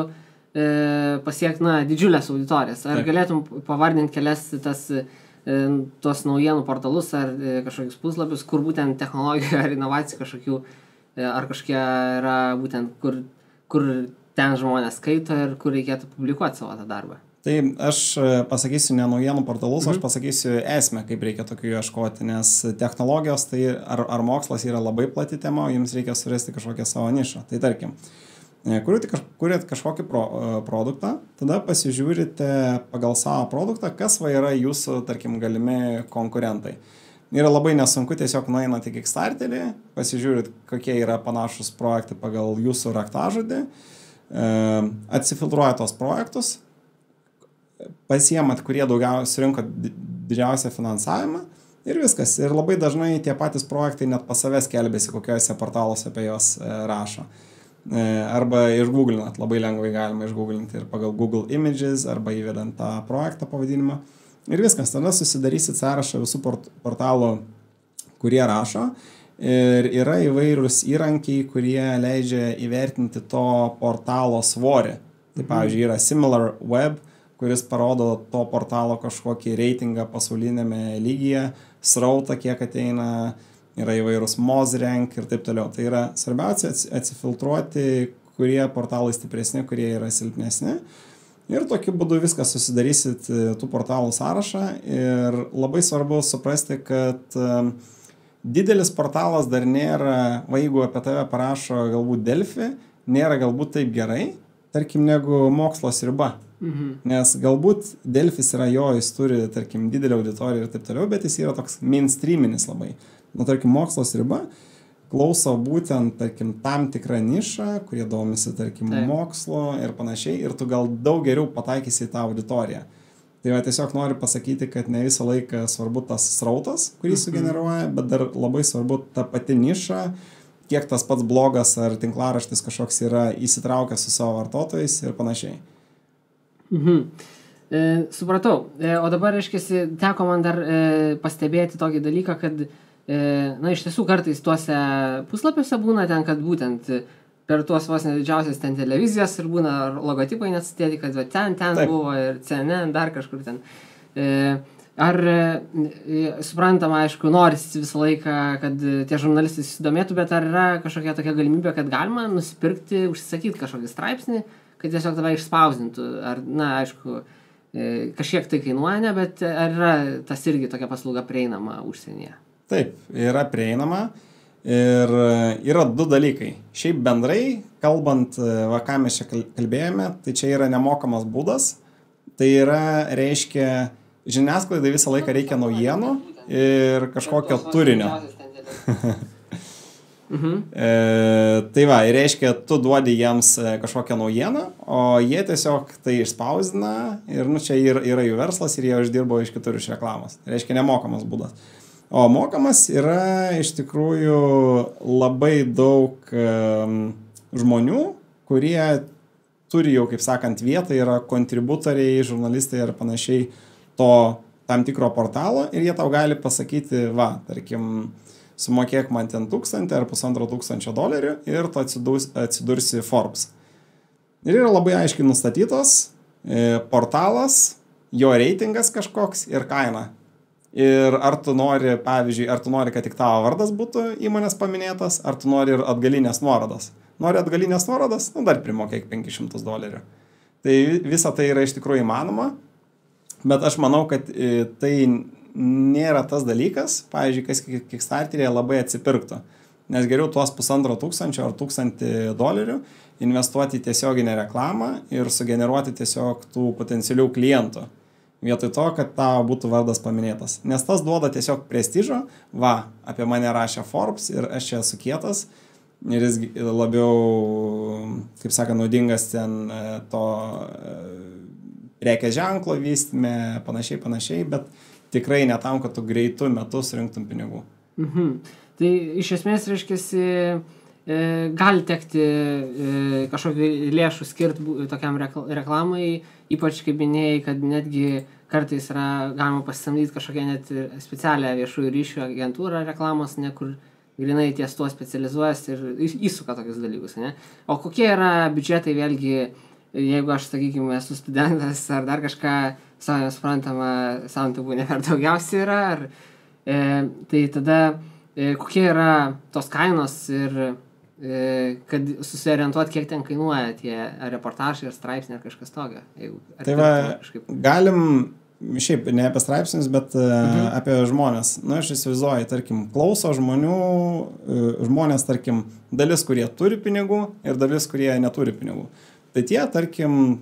pasiekti didžiulės auditorijas. Ar galėtum pavardinti kelias tuos naujienų portalus ar kažkokius puslapius, kur būtent technologijų ar inovacijų kažkokių, ar kažkokie yra būtent, kur ten žmonės skaito ir kur reikėtų publikuoti savo tą darbą? Tai aš pasakysiu ne naujienų portalus, aš pasakysiu esmę, kaip reikia tokių ieškoti, nes technologijos tai ar mokslas yra labai plati tema, jums reikia surasti kažkokią savo nišą. Tai tarkim, kuriat kažkokį produktą, tada pasižiūrite pagal savo produktą, kas yra jūsų, tarkim, galimi konkurentai. Yra labai nesunku, tiesiog nueinate į Kickstarterį, pasižiūrit, kokie yra panašus projektai pagal jūsų raktažodį, atsifiltruoja tos projektus, pasiemat, kurie daugiausiai surinko didžiausią finansavimą ir viskas. Ir labai dažnai tie patys projektai net pas savęs skelbiasi, kokiuose portaluose apie juos rašo. Arba išgooglinat, labai lengvai galima išgooglinti ir pagal Google Images arba įvedant tą projektą pavadinimą. Ir viskas, tada susidarysit sąrašą visų portalų, kurie rašo. Ir yra įvairūs įrankiai, kurie leidžia įvertinti to portalo svorį. Tai pavyzdžiui, yra SimilarWeb, kuris parodo to portalo kažkokį reitingą pasaulinėme lygyje, srautą, kiek ateina, yra įvairūs MozRank ir taip toliau. Tai yra svarbiausia atsifiltruoti, kurie portalai stipresni, kurie yra silpnesni. Ir tokiu būdu viską susidarysit tų portalų sąrašą. Ir labai svarbu suprasti, kad didelis portalas dar nėra, jeigu apie tave parašo galbūt Delfi, nėra galbūt taip gerai, tarkim, negu Mokslo sriuba. Nes galbūt Delfis yra jis turi, tarkim, didelį auditoriją ir taip toliau, bet jis yra toks mainstreaminis labai. Tarkim, Mokslo sriuba klauso būtent, tarkim, tam tikrą nišą, kurie domisi, tarkim, mokslo ir panašiai, ir tu gal daug geriau pataikysi į tą auditoriją. Tai tiesiog noriu pasakyti, kad ne visą laiką svarbu tas srautas, kurį sugeneruoja, bet dar labai svarbu ta pati niša, kiek tas pats blogas ar tinklaraštis kažkoks yra įsitraukęs su savo vartotojais ir panašiai. Supratau. O dabar, reiškiasi, teko man dar pastebėti tokį dalyką, kad iš tiesų kartais tuose puslapiuose būna ten, kad būtent per tuos vos nedidžiausias ten televizijas ir būna logotipai net sudėti, kad ten buvo ir CNN, dar kažkur ten. Ar suprantama, aišku, norisi visą laiką, kad tie žurnalistai susidomėtų, bet ar yra kažkokia tokia galimybė, kad galima nusipirkti, užsisakyti kažkokį straipsnį, kad tiesiog tave išspausdintų? Ar, aišku, kažkiek tai kainuoja, bet ar yra tas irgi tokia paslauga prieinama užsienyje? Taip, yra prieinama ir yra du dalykai. Šiaip bendrai, kalbant, ką mes čia kalbėjome, tai čia yra nemokamas būdas. Tai yra, reiškia, žiniasklaidai visą laiką reikia naujienų ir kažkokio turinio. Tai reiškia, tu duodi jiems kažkokią naujieną, o jie tiesiog tai išspausdina ir čia yra jų verslas ir jie uždirbo iš kitur iš reklamos. Tai reiškia nemokamas būdas. O mokamas yra iš tikrųjų labai daug žmonių, kurie turi jau, kaip sakant, vietą, yra kontributoriai, žurnalistai ir panašiai to tam tikro portalo ir jie tau gali pasakyti, tarkim, sumokėk man ten 1,000 ar $1,500 ir tu atsidursi Forbes. Ir yra labai aiškiai nustatytos portalas, jo reitingas kažkoks ir kaina. Ir ar tu nori, pavyzdžiui, kad tik tavo vardas būtų įmonės paminėtas, ar tu nori ir atgalinės nuorodas. Nori atgalinės nuorodas, dar primokėk $500. Tai visa tai yra iš tikrųjų įmanoma, bet aš manau, kad tai nėra tas dalykas, pavyzdžiui, kas Kickstarteryje labai atsipirktų. nes geriau tuos $1,500 ar $1,000 investuoti į tiesioginę reklamą ir sugeneruoti tiesiog tų potencialių klientų. Vietoj to, kad tavo būtų vardas paminėtas. Nes tas duoda tiesiog prestižo, apie mane rašė Forbes ir aš čia esu kietas ir jis labiau, kaip saka, naudingas ten to prekės ženklo vystyme, panašiai, bet tikrai ne tam, kad tu greitų metu surinktum pinigų. Tai iš esmės, reiškiasi, gali tekti kažkokį lėšų skirti tokiam reklamai, ypač kaip minėjai, kad netgi kartais yra galima pasisamdyti kažkokią net specialią viešųjų ryšių agentūrą reklamos, kur grinai ties tuo specializuojasi ir įsuka tokius dalykus, ne? O kokie yra biudžetai vėlgi, jeigu aš, sakykime, esu studentas ar dar kažką, savai suprantama, santubų ne per daugiausiai yra, tai tada kokie yra tos kainos ir kad susiorientuoti, kiek ten kainuoja tie reportažai ar straipsniai ar kažkas tokio. Tai galim šiaip ne apie straipsnius, bet apie žmonės. Aš įsivaizduoju, tarkim, klauso žmonės, tarkim, dalis, kurie turi pinigų ir dalis, kurie neturi pinigų. Tai tie, tarkim,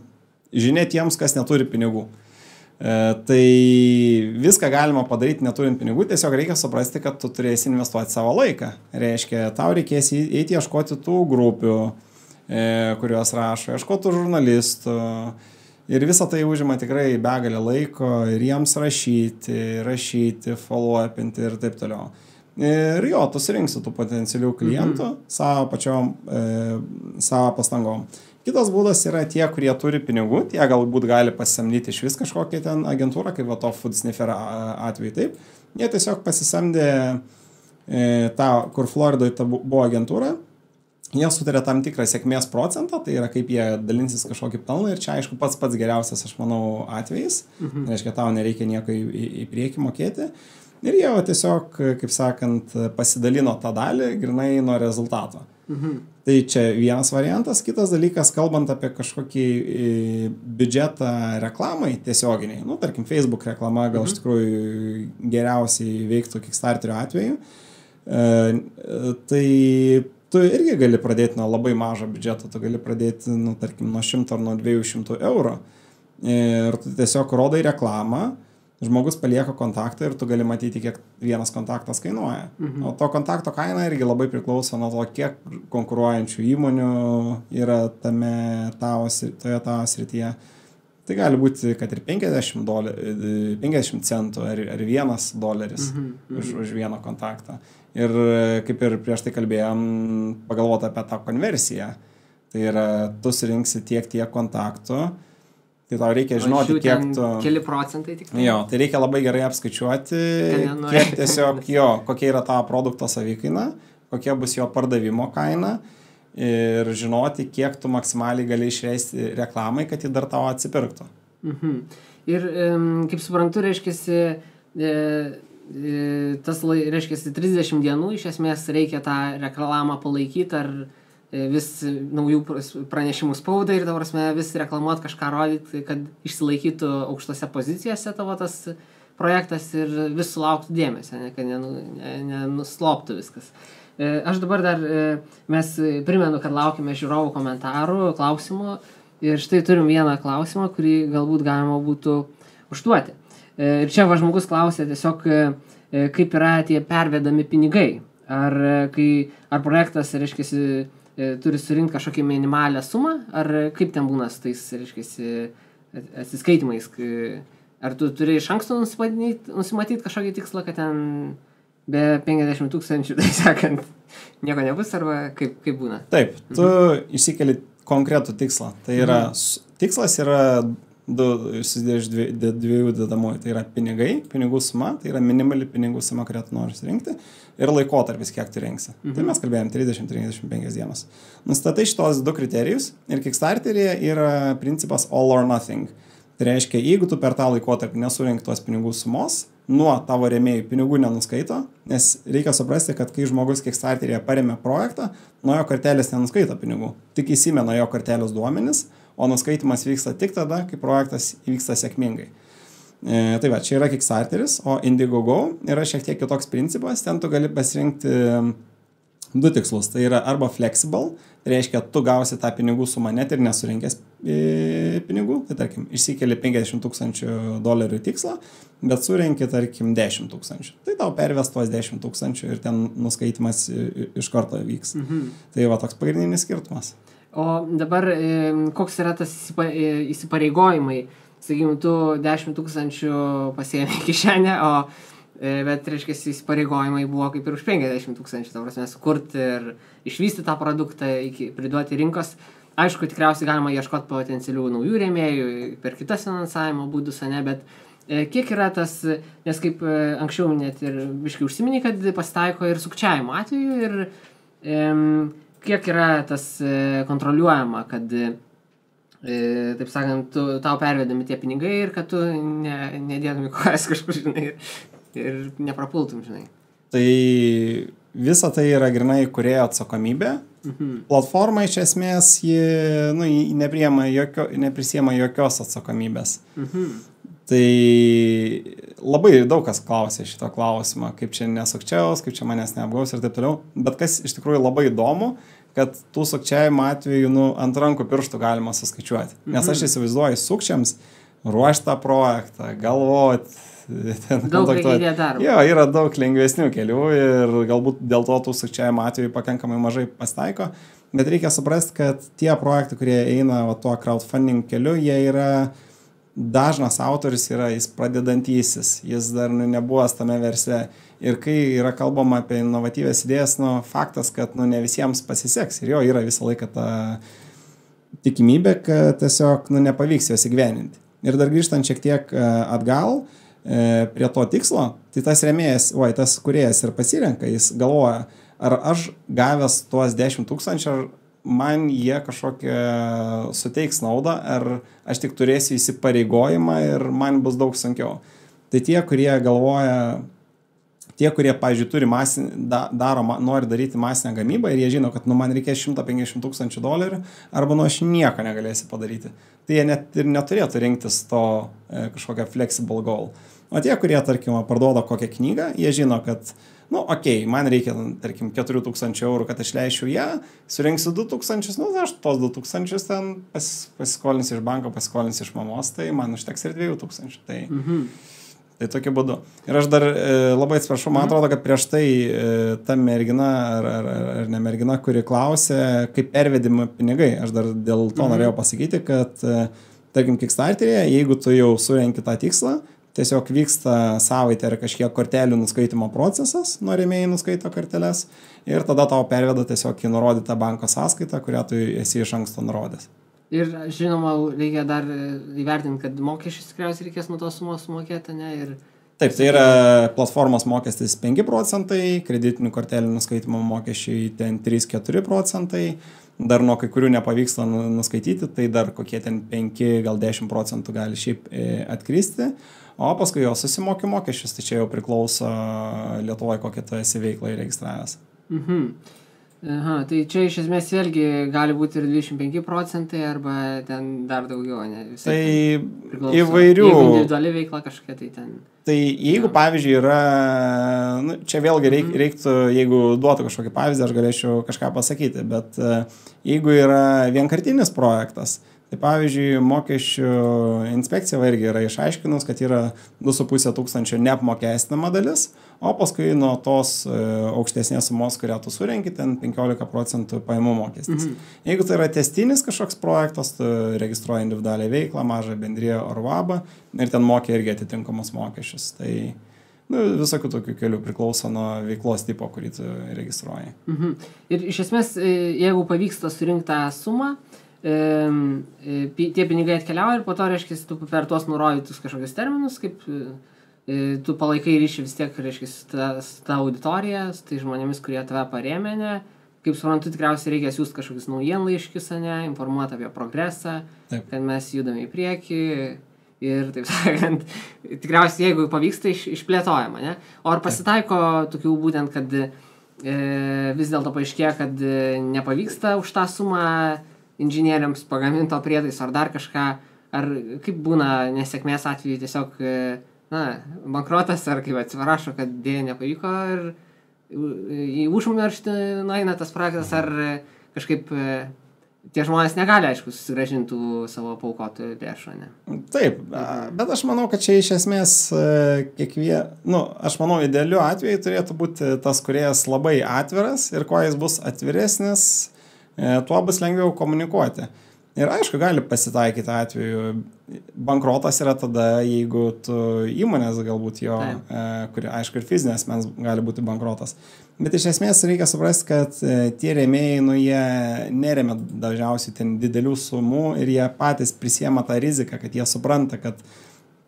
žinia tiems, kas neturi pinigų. Tai viską galima padaryti neturint pinigų, tiesiog reikia suprasti, kad tu turėsi investuoti savo laiką. Reiškia, tau reikės eiti ieškoti tų grupių, kurios rašo, ieškoti žurnalistų ir visą tai užima tikrai begalę laiko ir jiems rašyti, follow-upinti ir taip toliau. Ir jo, tu surinksi tų potencialių klientų savo pastangom. Kitas būdas yra tie, kurie turi pinigų, tie galbūt gali pasisamdyti iš vis kažkokią ten agentūrą, kaip to Food Sniffer atveju, taip. Jie tiesiog pasisamdė tą, kur Floridoje buvo agentūra, jie sutarė tam tikrą sėkmės procentą, tai yra kaip jie dalinsis kažkokį pelną ir čia aišku pats geriausias, aš manau, atvejais, reiškia, tau nereikia nieko į priekį mokėti. Ir jie tiesiog, kaip sakant, pasidalino tą dalį grinai nuo rezultato. Tai čia vienas variantas. Kitas dalykas, kalbant apie kažkokį biudžetą reklamai tiesioginiai, tarkim, Facebook reklama gal iš tikrųjų geriausiai veiktų Kickstarterio atveju, tai tu irgi gali pradėti nuo labai mažo biudžeto, tu gali pradėti, tarkim, nuo 100 ar nuo 200 eurų ir tu tiesiog rodai reklamą, žmogus palieka kontaktą ir tu gali matyti, kiek vienas kontaktas kainuoja. O to kontakto kaina irgi labai priklauso nuo to, kiek konkuruojančių įmonių yra toje tavo srityje. Tai gali būti, kad ir $50 centų ar $1 už vieną kontaktą. Ir kaip ir prieš tai kalbėjom, pagalvoti apie tą konversiją. Tai yra, tu surinksi tiek kontaktų, tai tau reikia žinoti, kiek tu... Keli procentai tik. Jo, tai reikia labai gerai apskaičiuoti, kiek tiesiog kokia yra tavo produkto savikaina, kokia bus jo pardavimo kaina ir žinoti, kiek tu maksimaliai gali išleisti reklamai, kad ji dar tavo atsipirktų. Ir kaip suprantu, reiškiasi, reiškiasi 30 dienų, iš esmės reikia tą reklamą palaikyti ar vis naujų pranešimų spaudai ir dabar vis reklamuoti kažką rodyti, kad išsilaikytų aukštose pozicijose tavo tas projektas ir vis sulauktų dėmesio, kad nenusloptų viskas. Aš dabar dar, mes primenu, kad laukime žiūrovų komentarų, klausimų ir štai turim vieną klausimą, kurį galbūt galima būtų užduoti. Ir čia žmogus klausė tiesiog, kaip yra tie pervedami pinigai. Ar projektas, reiškiasi, turi surinkti kažkokią minimalią sumą, ar kaip ten būna su tais, reiškiasi, atsiskaitimais? Ar tu turi iš anksto nusimatyti kažkokį tikslą, kad ten be 50 000, tai sakant, nieko nebus, arba kaip būna? Taip, tu išsikeli konkretų tikslą. Tai yra, tikslas yra susidėjo iš dviejų dedamųjų. Tai yra pinigai, pinigų suma, tai yra minimali pinigų suma, kurią tu nori surinkti, ir laikotarpis, kiek tu rinksi. Tai mes kalbėjom 30-35 dienas. Nustatai šitos du kriterijus ir Kickstarteryje yra principas all or nothing. Tai reiškia, jeigu tu per tą laikotarpį nesurink tos pinigų sumos, nuo tavo rėmėjų pinigų nenuskaito, nes reikia suprasti, kad kai žmogus Kickstarteryje paremė projektą, nuo jo kortelės nenuskaito pinigų. Tik įsimena jo kortelės duomenis, o nuskaitimas vyksta tik tada, kai projektas įvyksta sėkmingai. Tai va, čia yra Kickstarteris, o Indiegogo yra šiek tiek kitoks principas, ten tu gali pasirinkti du tikslus. Tai yra arba flexible, tai reiškia, tu gausi tą pinigų sumą net ir nesurinkęs pinigų, tai tarkim, išsikeli $50,000 tikslą, bet surenki, tarkim, 10,000. Tai tau perves tuos 10,000 ir ten nuskaitimas iš karto vyks. Tai va toks pagrindinis skirtumas. O dabar koks yra tas įsipareigojimai? Sakykime, tu 10,000 pasiėmė kišenę, bet, reiškia, įsipareigojimai buvo kaip ir už 50,000, ta prasme, sukurti ir išvystyti tą produktą, priduoti rinkos. Aišku, tikriausiai galima ieškoti potencialių naujų rėmėjų per kitas finansavimo būdus, ne, bet kiek yra tas, nes kaip anksčiau net ir biškai užsiminiai, kad pasitaiko ir sukčiavimo atveju ir kiek yra tas kontroliuojama, kad, taip sakant, tau pervedami tie pinigai ir kad tu nedėdami kojas kažkur, žinai, ir neprapultum, žinai. Tai visa tai yra grinai kūrėjo atsakomybė. Platforma iš esmės ji neprisiema jokios atsakomybės. Tai labai daug kas klausė šito klausimo, kaip čia nesukčiaus, kaip čia manęs neapgaus ir taip toliau. Bet kas iš tikrųjų labai įdomu, kad tų sukčiavimo atveju ant rankų pirštų galima suskaičiuoti. Nes aš įsivaizduoju sukčiams ruošti tą projektą, galvoti. Daug reikia įdėti darbą. Jo, yra daug lengvesnių kelių ir galbūt dėl to tų sukčiavimo atveju pakankamai mažai pasitaiko. Bet reikia suprasti, kad tie projektai, kurie eina tuo crowdfunding keliu, jie yra dažnas autorius, jis pradedantysis, jis dar nebuvęs tame versle. Ir kai yra kalbama apie inovatyvės idėjas, faktas, kad ne visiems pasiseks. Ir jo yra visą laiką ta tikimybė, kad tiesiog nepavyks jos įgyveninti. Ir dar grįžtant šiek tiek atgal prie to tikslo, tai tas rėmėjas, tas kūrėjas ir pasirenka, jis galvoja, ar aš gavęs tuos 10,000, ar man jie kažkokią suteiks naudą, ar aš tik turėsiu įsipareigojimą ir man bus daug sunkiau. Tai tie, kurie galvoja, pavyzdžiui, nori daryti masinę gamybą ir jie žino, kad man reikės $150,000 arba aš nieko negalėsiu padaryti. Tai jie net ir neturėtų rinktis to kažkokią flexible goal. O tie, kurie, tarkim, parduoda kokią knygą, jie žino, kad, man reikia, tarkim, €4,000, kad aš leisčiau ją, surinksiu 2,000, aš tos 2,000 ten pasiskolinsiu iš banko, pasiskolinsiu iš mamos, tai man užteks ir 2,000. Tai tokiu būdu. Ir aš dar labai atsiprašau, man atrodo, kad prieš tai ta mergina ar ne mergina, kuri klausė, kaip pervedimi pinigai. Aš dar dėl to norėjau pasakyti, kad, tarkim, Kickstarter'e, jeigu tu jau surenki tą tikslą, tiesiog vyksta savaitę ar kažkiek kortelių nuskaitimo procesas, rėmėjai nuskaito korteles ir tada tau perveda tiesiog į nurodytą banko sąskaitą, kurią tu esi iš anksto nurodęs. Ir žinoma, reikia dar įvertinti, kad mokesčius tikriausiai reikės nuo tos sumos sumokėti, ne? Taip, tai yra platformos mokestis 5%, kreditinių kortelių nuskaitimo mokesčiai ten 3-4%, dar nuo kai kurių nepavyksta nuskaityti, tai dar kokie ten 5, gal 10% gali šiaip atkristi, o paskui jo susimoki mokesčius, tai čia jau priklauso Lietuvoje, kokią tu esi veiklą įregistravęs. Aha, tai čia iš esmės vėlgi gali būti ir 25% arba ten dar daugiau, ne? Visai tai įvairių. Jeigu individuali veikla kažkokia, tai ten. Tai jeigu, pavyzdžiui, yra, čia vėlgi reiktų, jeigu duotų kažkokį pavyzdį, aš galėčiau kažką pasakyti, bet jeigu yra vienkartinis projektas, tai pavyzdžiui, mokesčių inspekcija irgi yra išaiškinus, kad yra 2,5 neapmokestinama dalis, o paskui nuo tos aukštesnės sumos, kurią tu surenki, ten 15% pajamų mokestis. Jeigu tai yra tęstinis kažkoks projektas, tu registruoji individualią veiklą, mažą bendriją ar VABą ir ten mokė irgi atitinkamus mokesčius. Tai visokių tokių kelių priklauso nuo veiklos tipo, kurį tu registruoji. Ir iš esmės, jeigu pavyksta surinkti tą sumą, tie pinigai atkeliauja ir po to, reiškia, tu per tuos nurodytus kažkokius terminus, kaip tu palaikai ryšį vis tiek, reiškia, tą auditoriją, tai žmonėmis, kurie tave parėmė, kaip suprantu, tikriausiai reikia siūsti kažkokius naujienlaiškius, informuoti apie progresą, kad mes judame į priekį ir, taip sakant, tikriausiai, jeigu pavyksta, išplėtojama, ne? O ar pasitaiko tokių būtent, kad vis dėlto paaiškėja, kad nepavyksta už tą sumą inžinieriams pagaminto prietaiso ar dar kažką, ar kaip būna nesėkmės atveju tiesiog, bankrotas, ar kaip atsiprašo, kad dėja nepavyko ir į užmarštį nueina tas projektas, ar kažkaip tie žmonės negali, aišku, susigrąžintų savo paukotų lėšų, ne? Taip, bet aš manau, kad čia iš esmės aš manau, idealiu atveju turėtų būti tas kūrėjas labai atviras ir kuo jis bus atviresnis, tuo bus lengviau komunikuoti. Ir aišku, gali pasitaikyti atveju. Bankrotas yra tada, jeigu tu įmonės galbūt jo, kuri, aišku, ir fizinės mens gali būti bankrotas. Bet iš esmės reikia suprasti, kad tie rėmėjai, jie neremia dažniausiai ten didelių sumų ir jie patys prisiema tą riziką, kad jie supranta, kad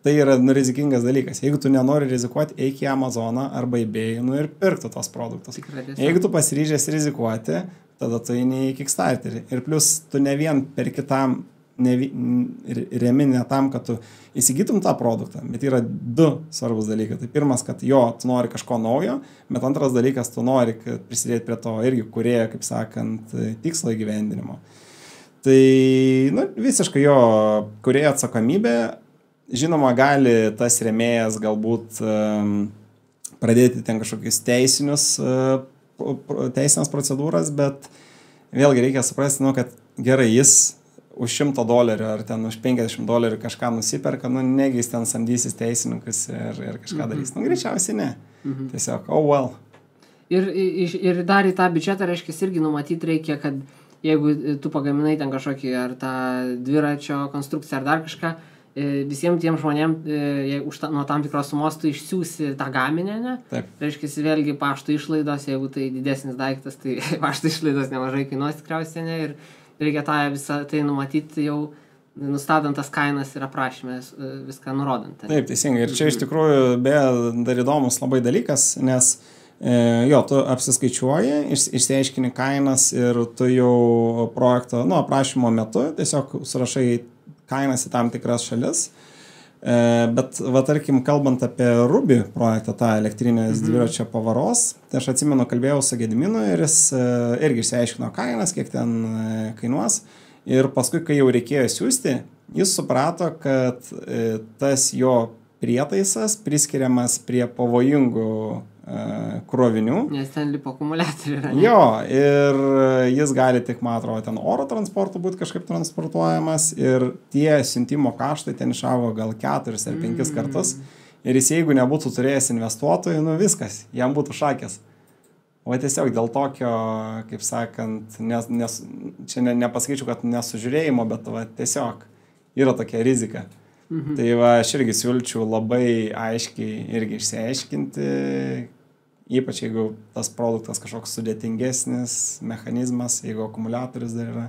tai yra rizikingas dalykas. Jeigu tu nenori rizikuoti, eik į Amazoną arba eBay ir pirkti tos produktus. Jeigu tu pasiryžęs rizikuoti, tada tu eini į Kickstarterį. Ir plus tu ne vien per kitam remi ne tam, kad tu įsigytum tą produktą, bet yra du svarbus dalykai. Tai pirmas, kad tu nori kažko naujo, bet antras dalykas, tu nori prisidėti prie to irgi kūrėjo, kaip sakant, tikslo įgyvendinimo. Tai visiškai jo kūrėjo atsakomybė. Žinoma, gali tas rėmėjas galbūt pradėti ten kažkokius teisinės procedūras, bet vėlgi reikia suprasti, kad gerai, jis už $100 ar ten už $50 kažką nusiperka, negi jis ten samdysis teisininkus ir kažką darys. Greičiausiai ne. Tiesiog, well. Ir dar į tą biudžetą, reiškia, irgi numatyti reikia, kad jeigu tu pagaminai ten kažkokį ar tą dviračio konstrukciją ar dar kažką, visiems tiem žmonėm nuo tam tikros sumos tu išsiųsi tą gaminę, ne? Taip. Reiškia, vėlgi pašto išlaidos, jeigu tai didesnis daiktas, tai pašto išlaidos nemažai kainuos tikriausiai, ne? Ir reikia tą visą tai numatyti jau nustatant tas kainas ir aprašymę viską nurodant. Taip, teisingai. Ir čia iš tikrųjų dar įdomus labai dalykas, nes tu apsiskaičiuoji, išsiaiškini kainas ir tu jau projekto, aprašymo metu tiesiog surašai kainas į tam tikras šalis. Bet, tarkim, kalbant apie Ruby projektą, tą elektrinės dviračio pavaros, tai aš atsimenu, kalbėjau su Gediminu ir jis irgi išsiaiškino kainas, kiek ten kainuos. Ir paskui, kai jau reikėjo siųsti, jis suprato, kad tas jo prietaisas priskiriamas prie pavojingų krovinių. Nes ten lipo akumuliatoriai yra. Jo, ir jis gali tik, man atrodo, ten oro transportu būti kažkaip transportuojamas ir tie siuntimo kaštai ten išaugo gal 4 ar 5 kartus. Ir jis, jeigu nebūtų turėjęs investuotojų, viskas, jam būtų šakės. O tiesiog dėl tokio, kaip sakant, čia nepasakyčiau, kad nesužiūrėjimo, bet tiesiog yra tokia rizika. Tai aš irgi siūlyčiau labai aiškiai irgi išsiaiškinti, ypač jeigu tas produktas kažkoks sudėtingesnis mechanizmas, jeigu akumuliatorius dar yra.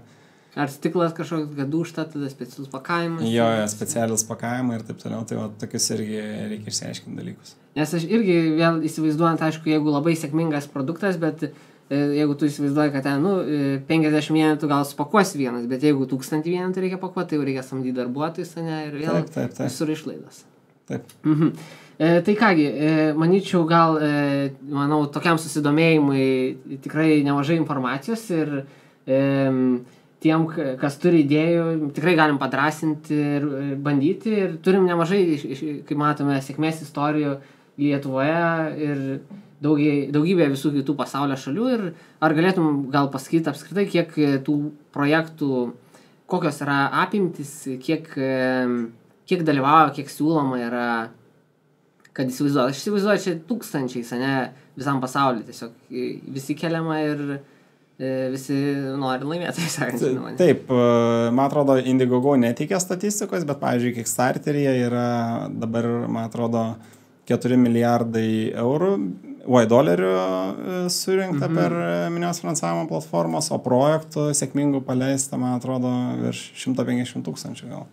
Ar stiklas kažkoks, kad dūžta, tada specialus pakavimas. Jo, specialus pakavimai ir taip toliau, tai tokius irgi reikia išsiaiškinti dalykus. Nes aš irgi vėl įsivaizduojant, aišku, jeigu labai sėkmingas produktas, bet jeigu tu įsivaizduoji, kad ten 50 vienetų gal supakuosi vienas, bet jeigu 1000 vienetų reikia pakuoti, tai jau reikia samdyti darbuotojus, ne, ir vėl visur išlaidos. Taip. Tai kągi, manyčiau, gal, manau, tokiam susidomėjimui tikrai nemažai informacijos ir tiem, kas turi idėjų, tikrai galim padrąsinti ir bandyti. Ir turim nemažai, kaip matome, sėkmės istorijų Lietuvoje ir daugybė visų kitų pasaulio šalių. Ir ar galėtum gal pasakyti apskritai, kiek tų projektų, kokios yra apimtis, kiek dalyvauja, kiek siūloma yra, kad įsivaizduoju. Aš įsivaizduoju, čia tūkstančiais, ne, visam pasauliu tiesiog visi keliama ir visi nori laimėti, sakant. Taip, man atrodo, Indiegogo neteikia statistikos, bet, pavyzdžiui, Kickstarteryje yra dabar, man atrodo, 4 milijardai dolerių surinkta per minios finansavimo platformos, o projektų sėkmingų paleista, man atrodo, virš 150 000 gal.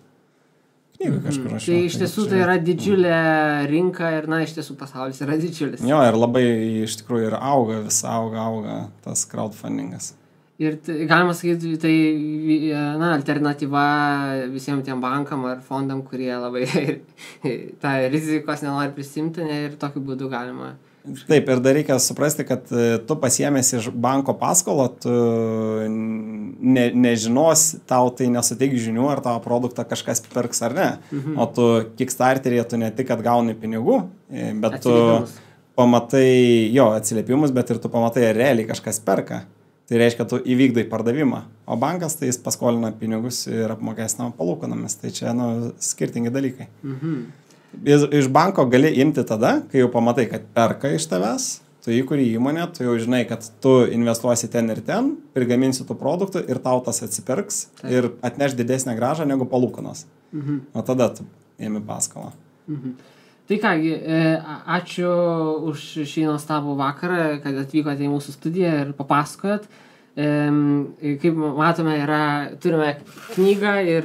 Knygų kažkur aš. Tai iš tiesų tai yra didžiulė rinka ir, iš tiesų pasaulis yra didžiulis. Jo, ir labai iš tikrųjų ir auga tas crowdfundingas. Ir galima sakyti, tai alternatyva visiems tiem bankam ar fondam, kurie labai tą rizikos nenori prisimti, ir tokiu būdu galima. Taip, ir dar reikia suprasti, kad tu pasiėmės iš banko paskolą, tu nežinos, tau tai nesuteiks žinių, ar tavo produktą kažkas pirks ar ne. O tu Kickstarteryje tu ne tik, kad gauni pinigų, bet tu pamatai jo atsiliepimus, bet ir tu pamatai, ar realiai kažkas perka. Tai reiškia, tu įvykdai pardavimą. O bankas tai jis paskolina pinigus ir apmokestinama palūkanomis. Tai čia skirtingi dalykai. Iš banko gali imti tada, kai jau pamatai, kad perka iš tavęs, tu įkuri įmonę, tu jau žinai, kad tu investuosi ten ir ten, prigaminsi tų produktų ir tau tas atsipirks ir atneš didesnę grąžą negu palūkanos. O tada tu ėmi paskolą. Tai kągi, ačiū už šį nuostabų vakarą, kad atvykote į mūsų studiją ir papasakojot. Kaip matome, turime knygą ir,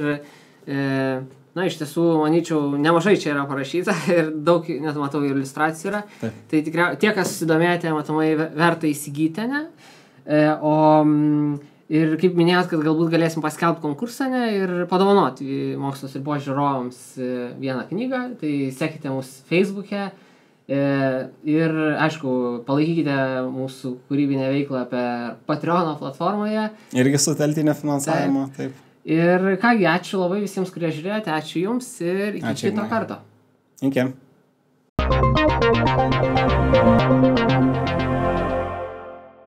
iš tiesų, manyčiau, nemažai čia yra parašyta ir daug, net matau, iliustracijų yra. Taip. Tai tikriausiai tie, kas susidomėjote, matomai verta įsigyti, ne? Ir kaip minėjot, kad galbūt galėsim paskelbti konkursą ir padovanoti Mokslas ir Ribos žiūrovams vieną knygą, tai sekite mus Facebook'e ir, aišku, palaikykite mūsų kūrybinę veiklą per Patreono platformoje. Irgi su teltinio finansavimo, taip. Ir kągi, ačiū labai visiems, kurie žiūrėjote, ačiū jums ir iki kito karto. Iki.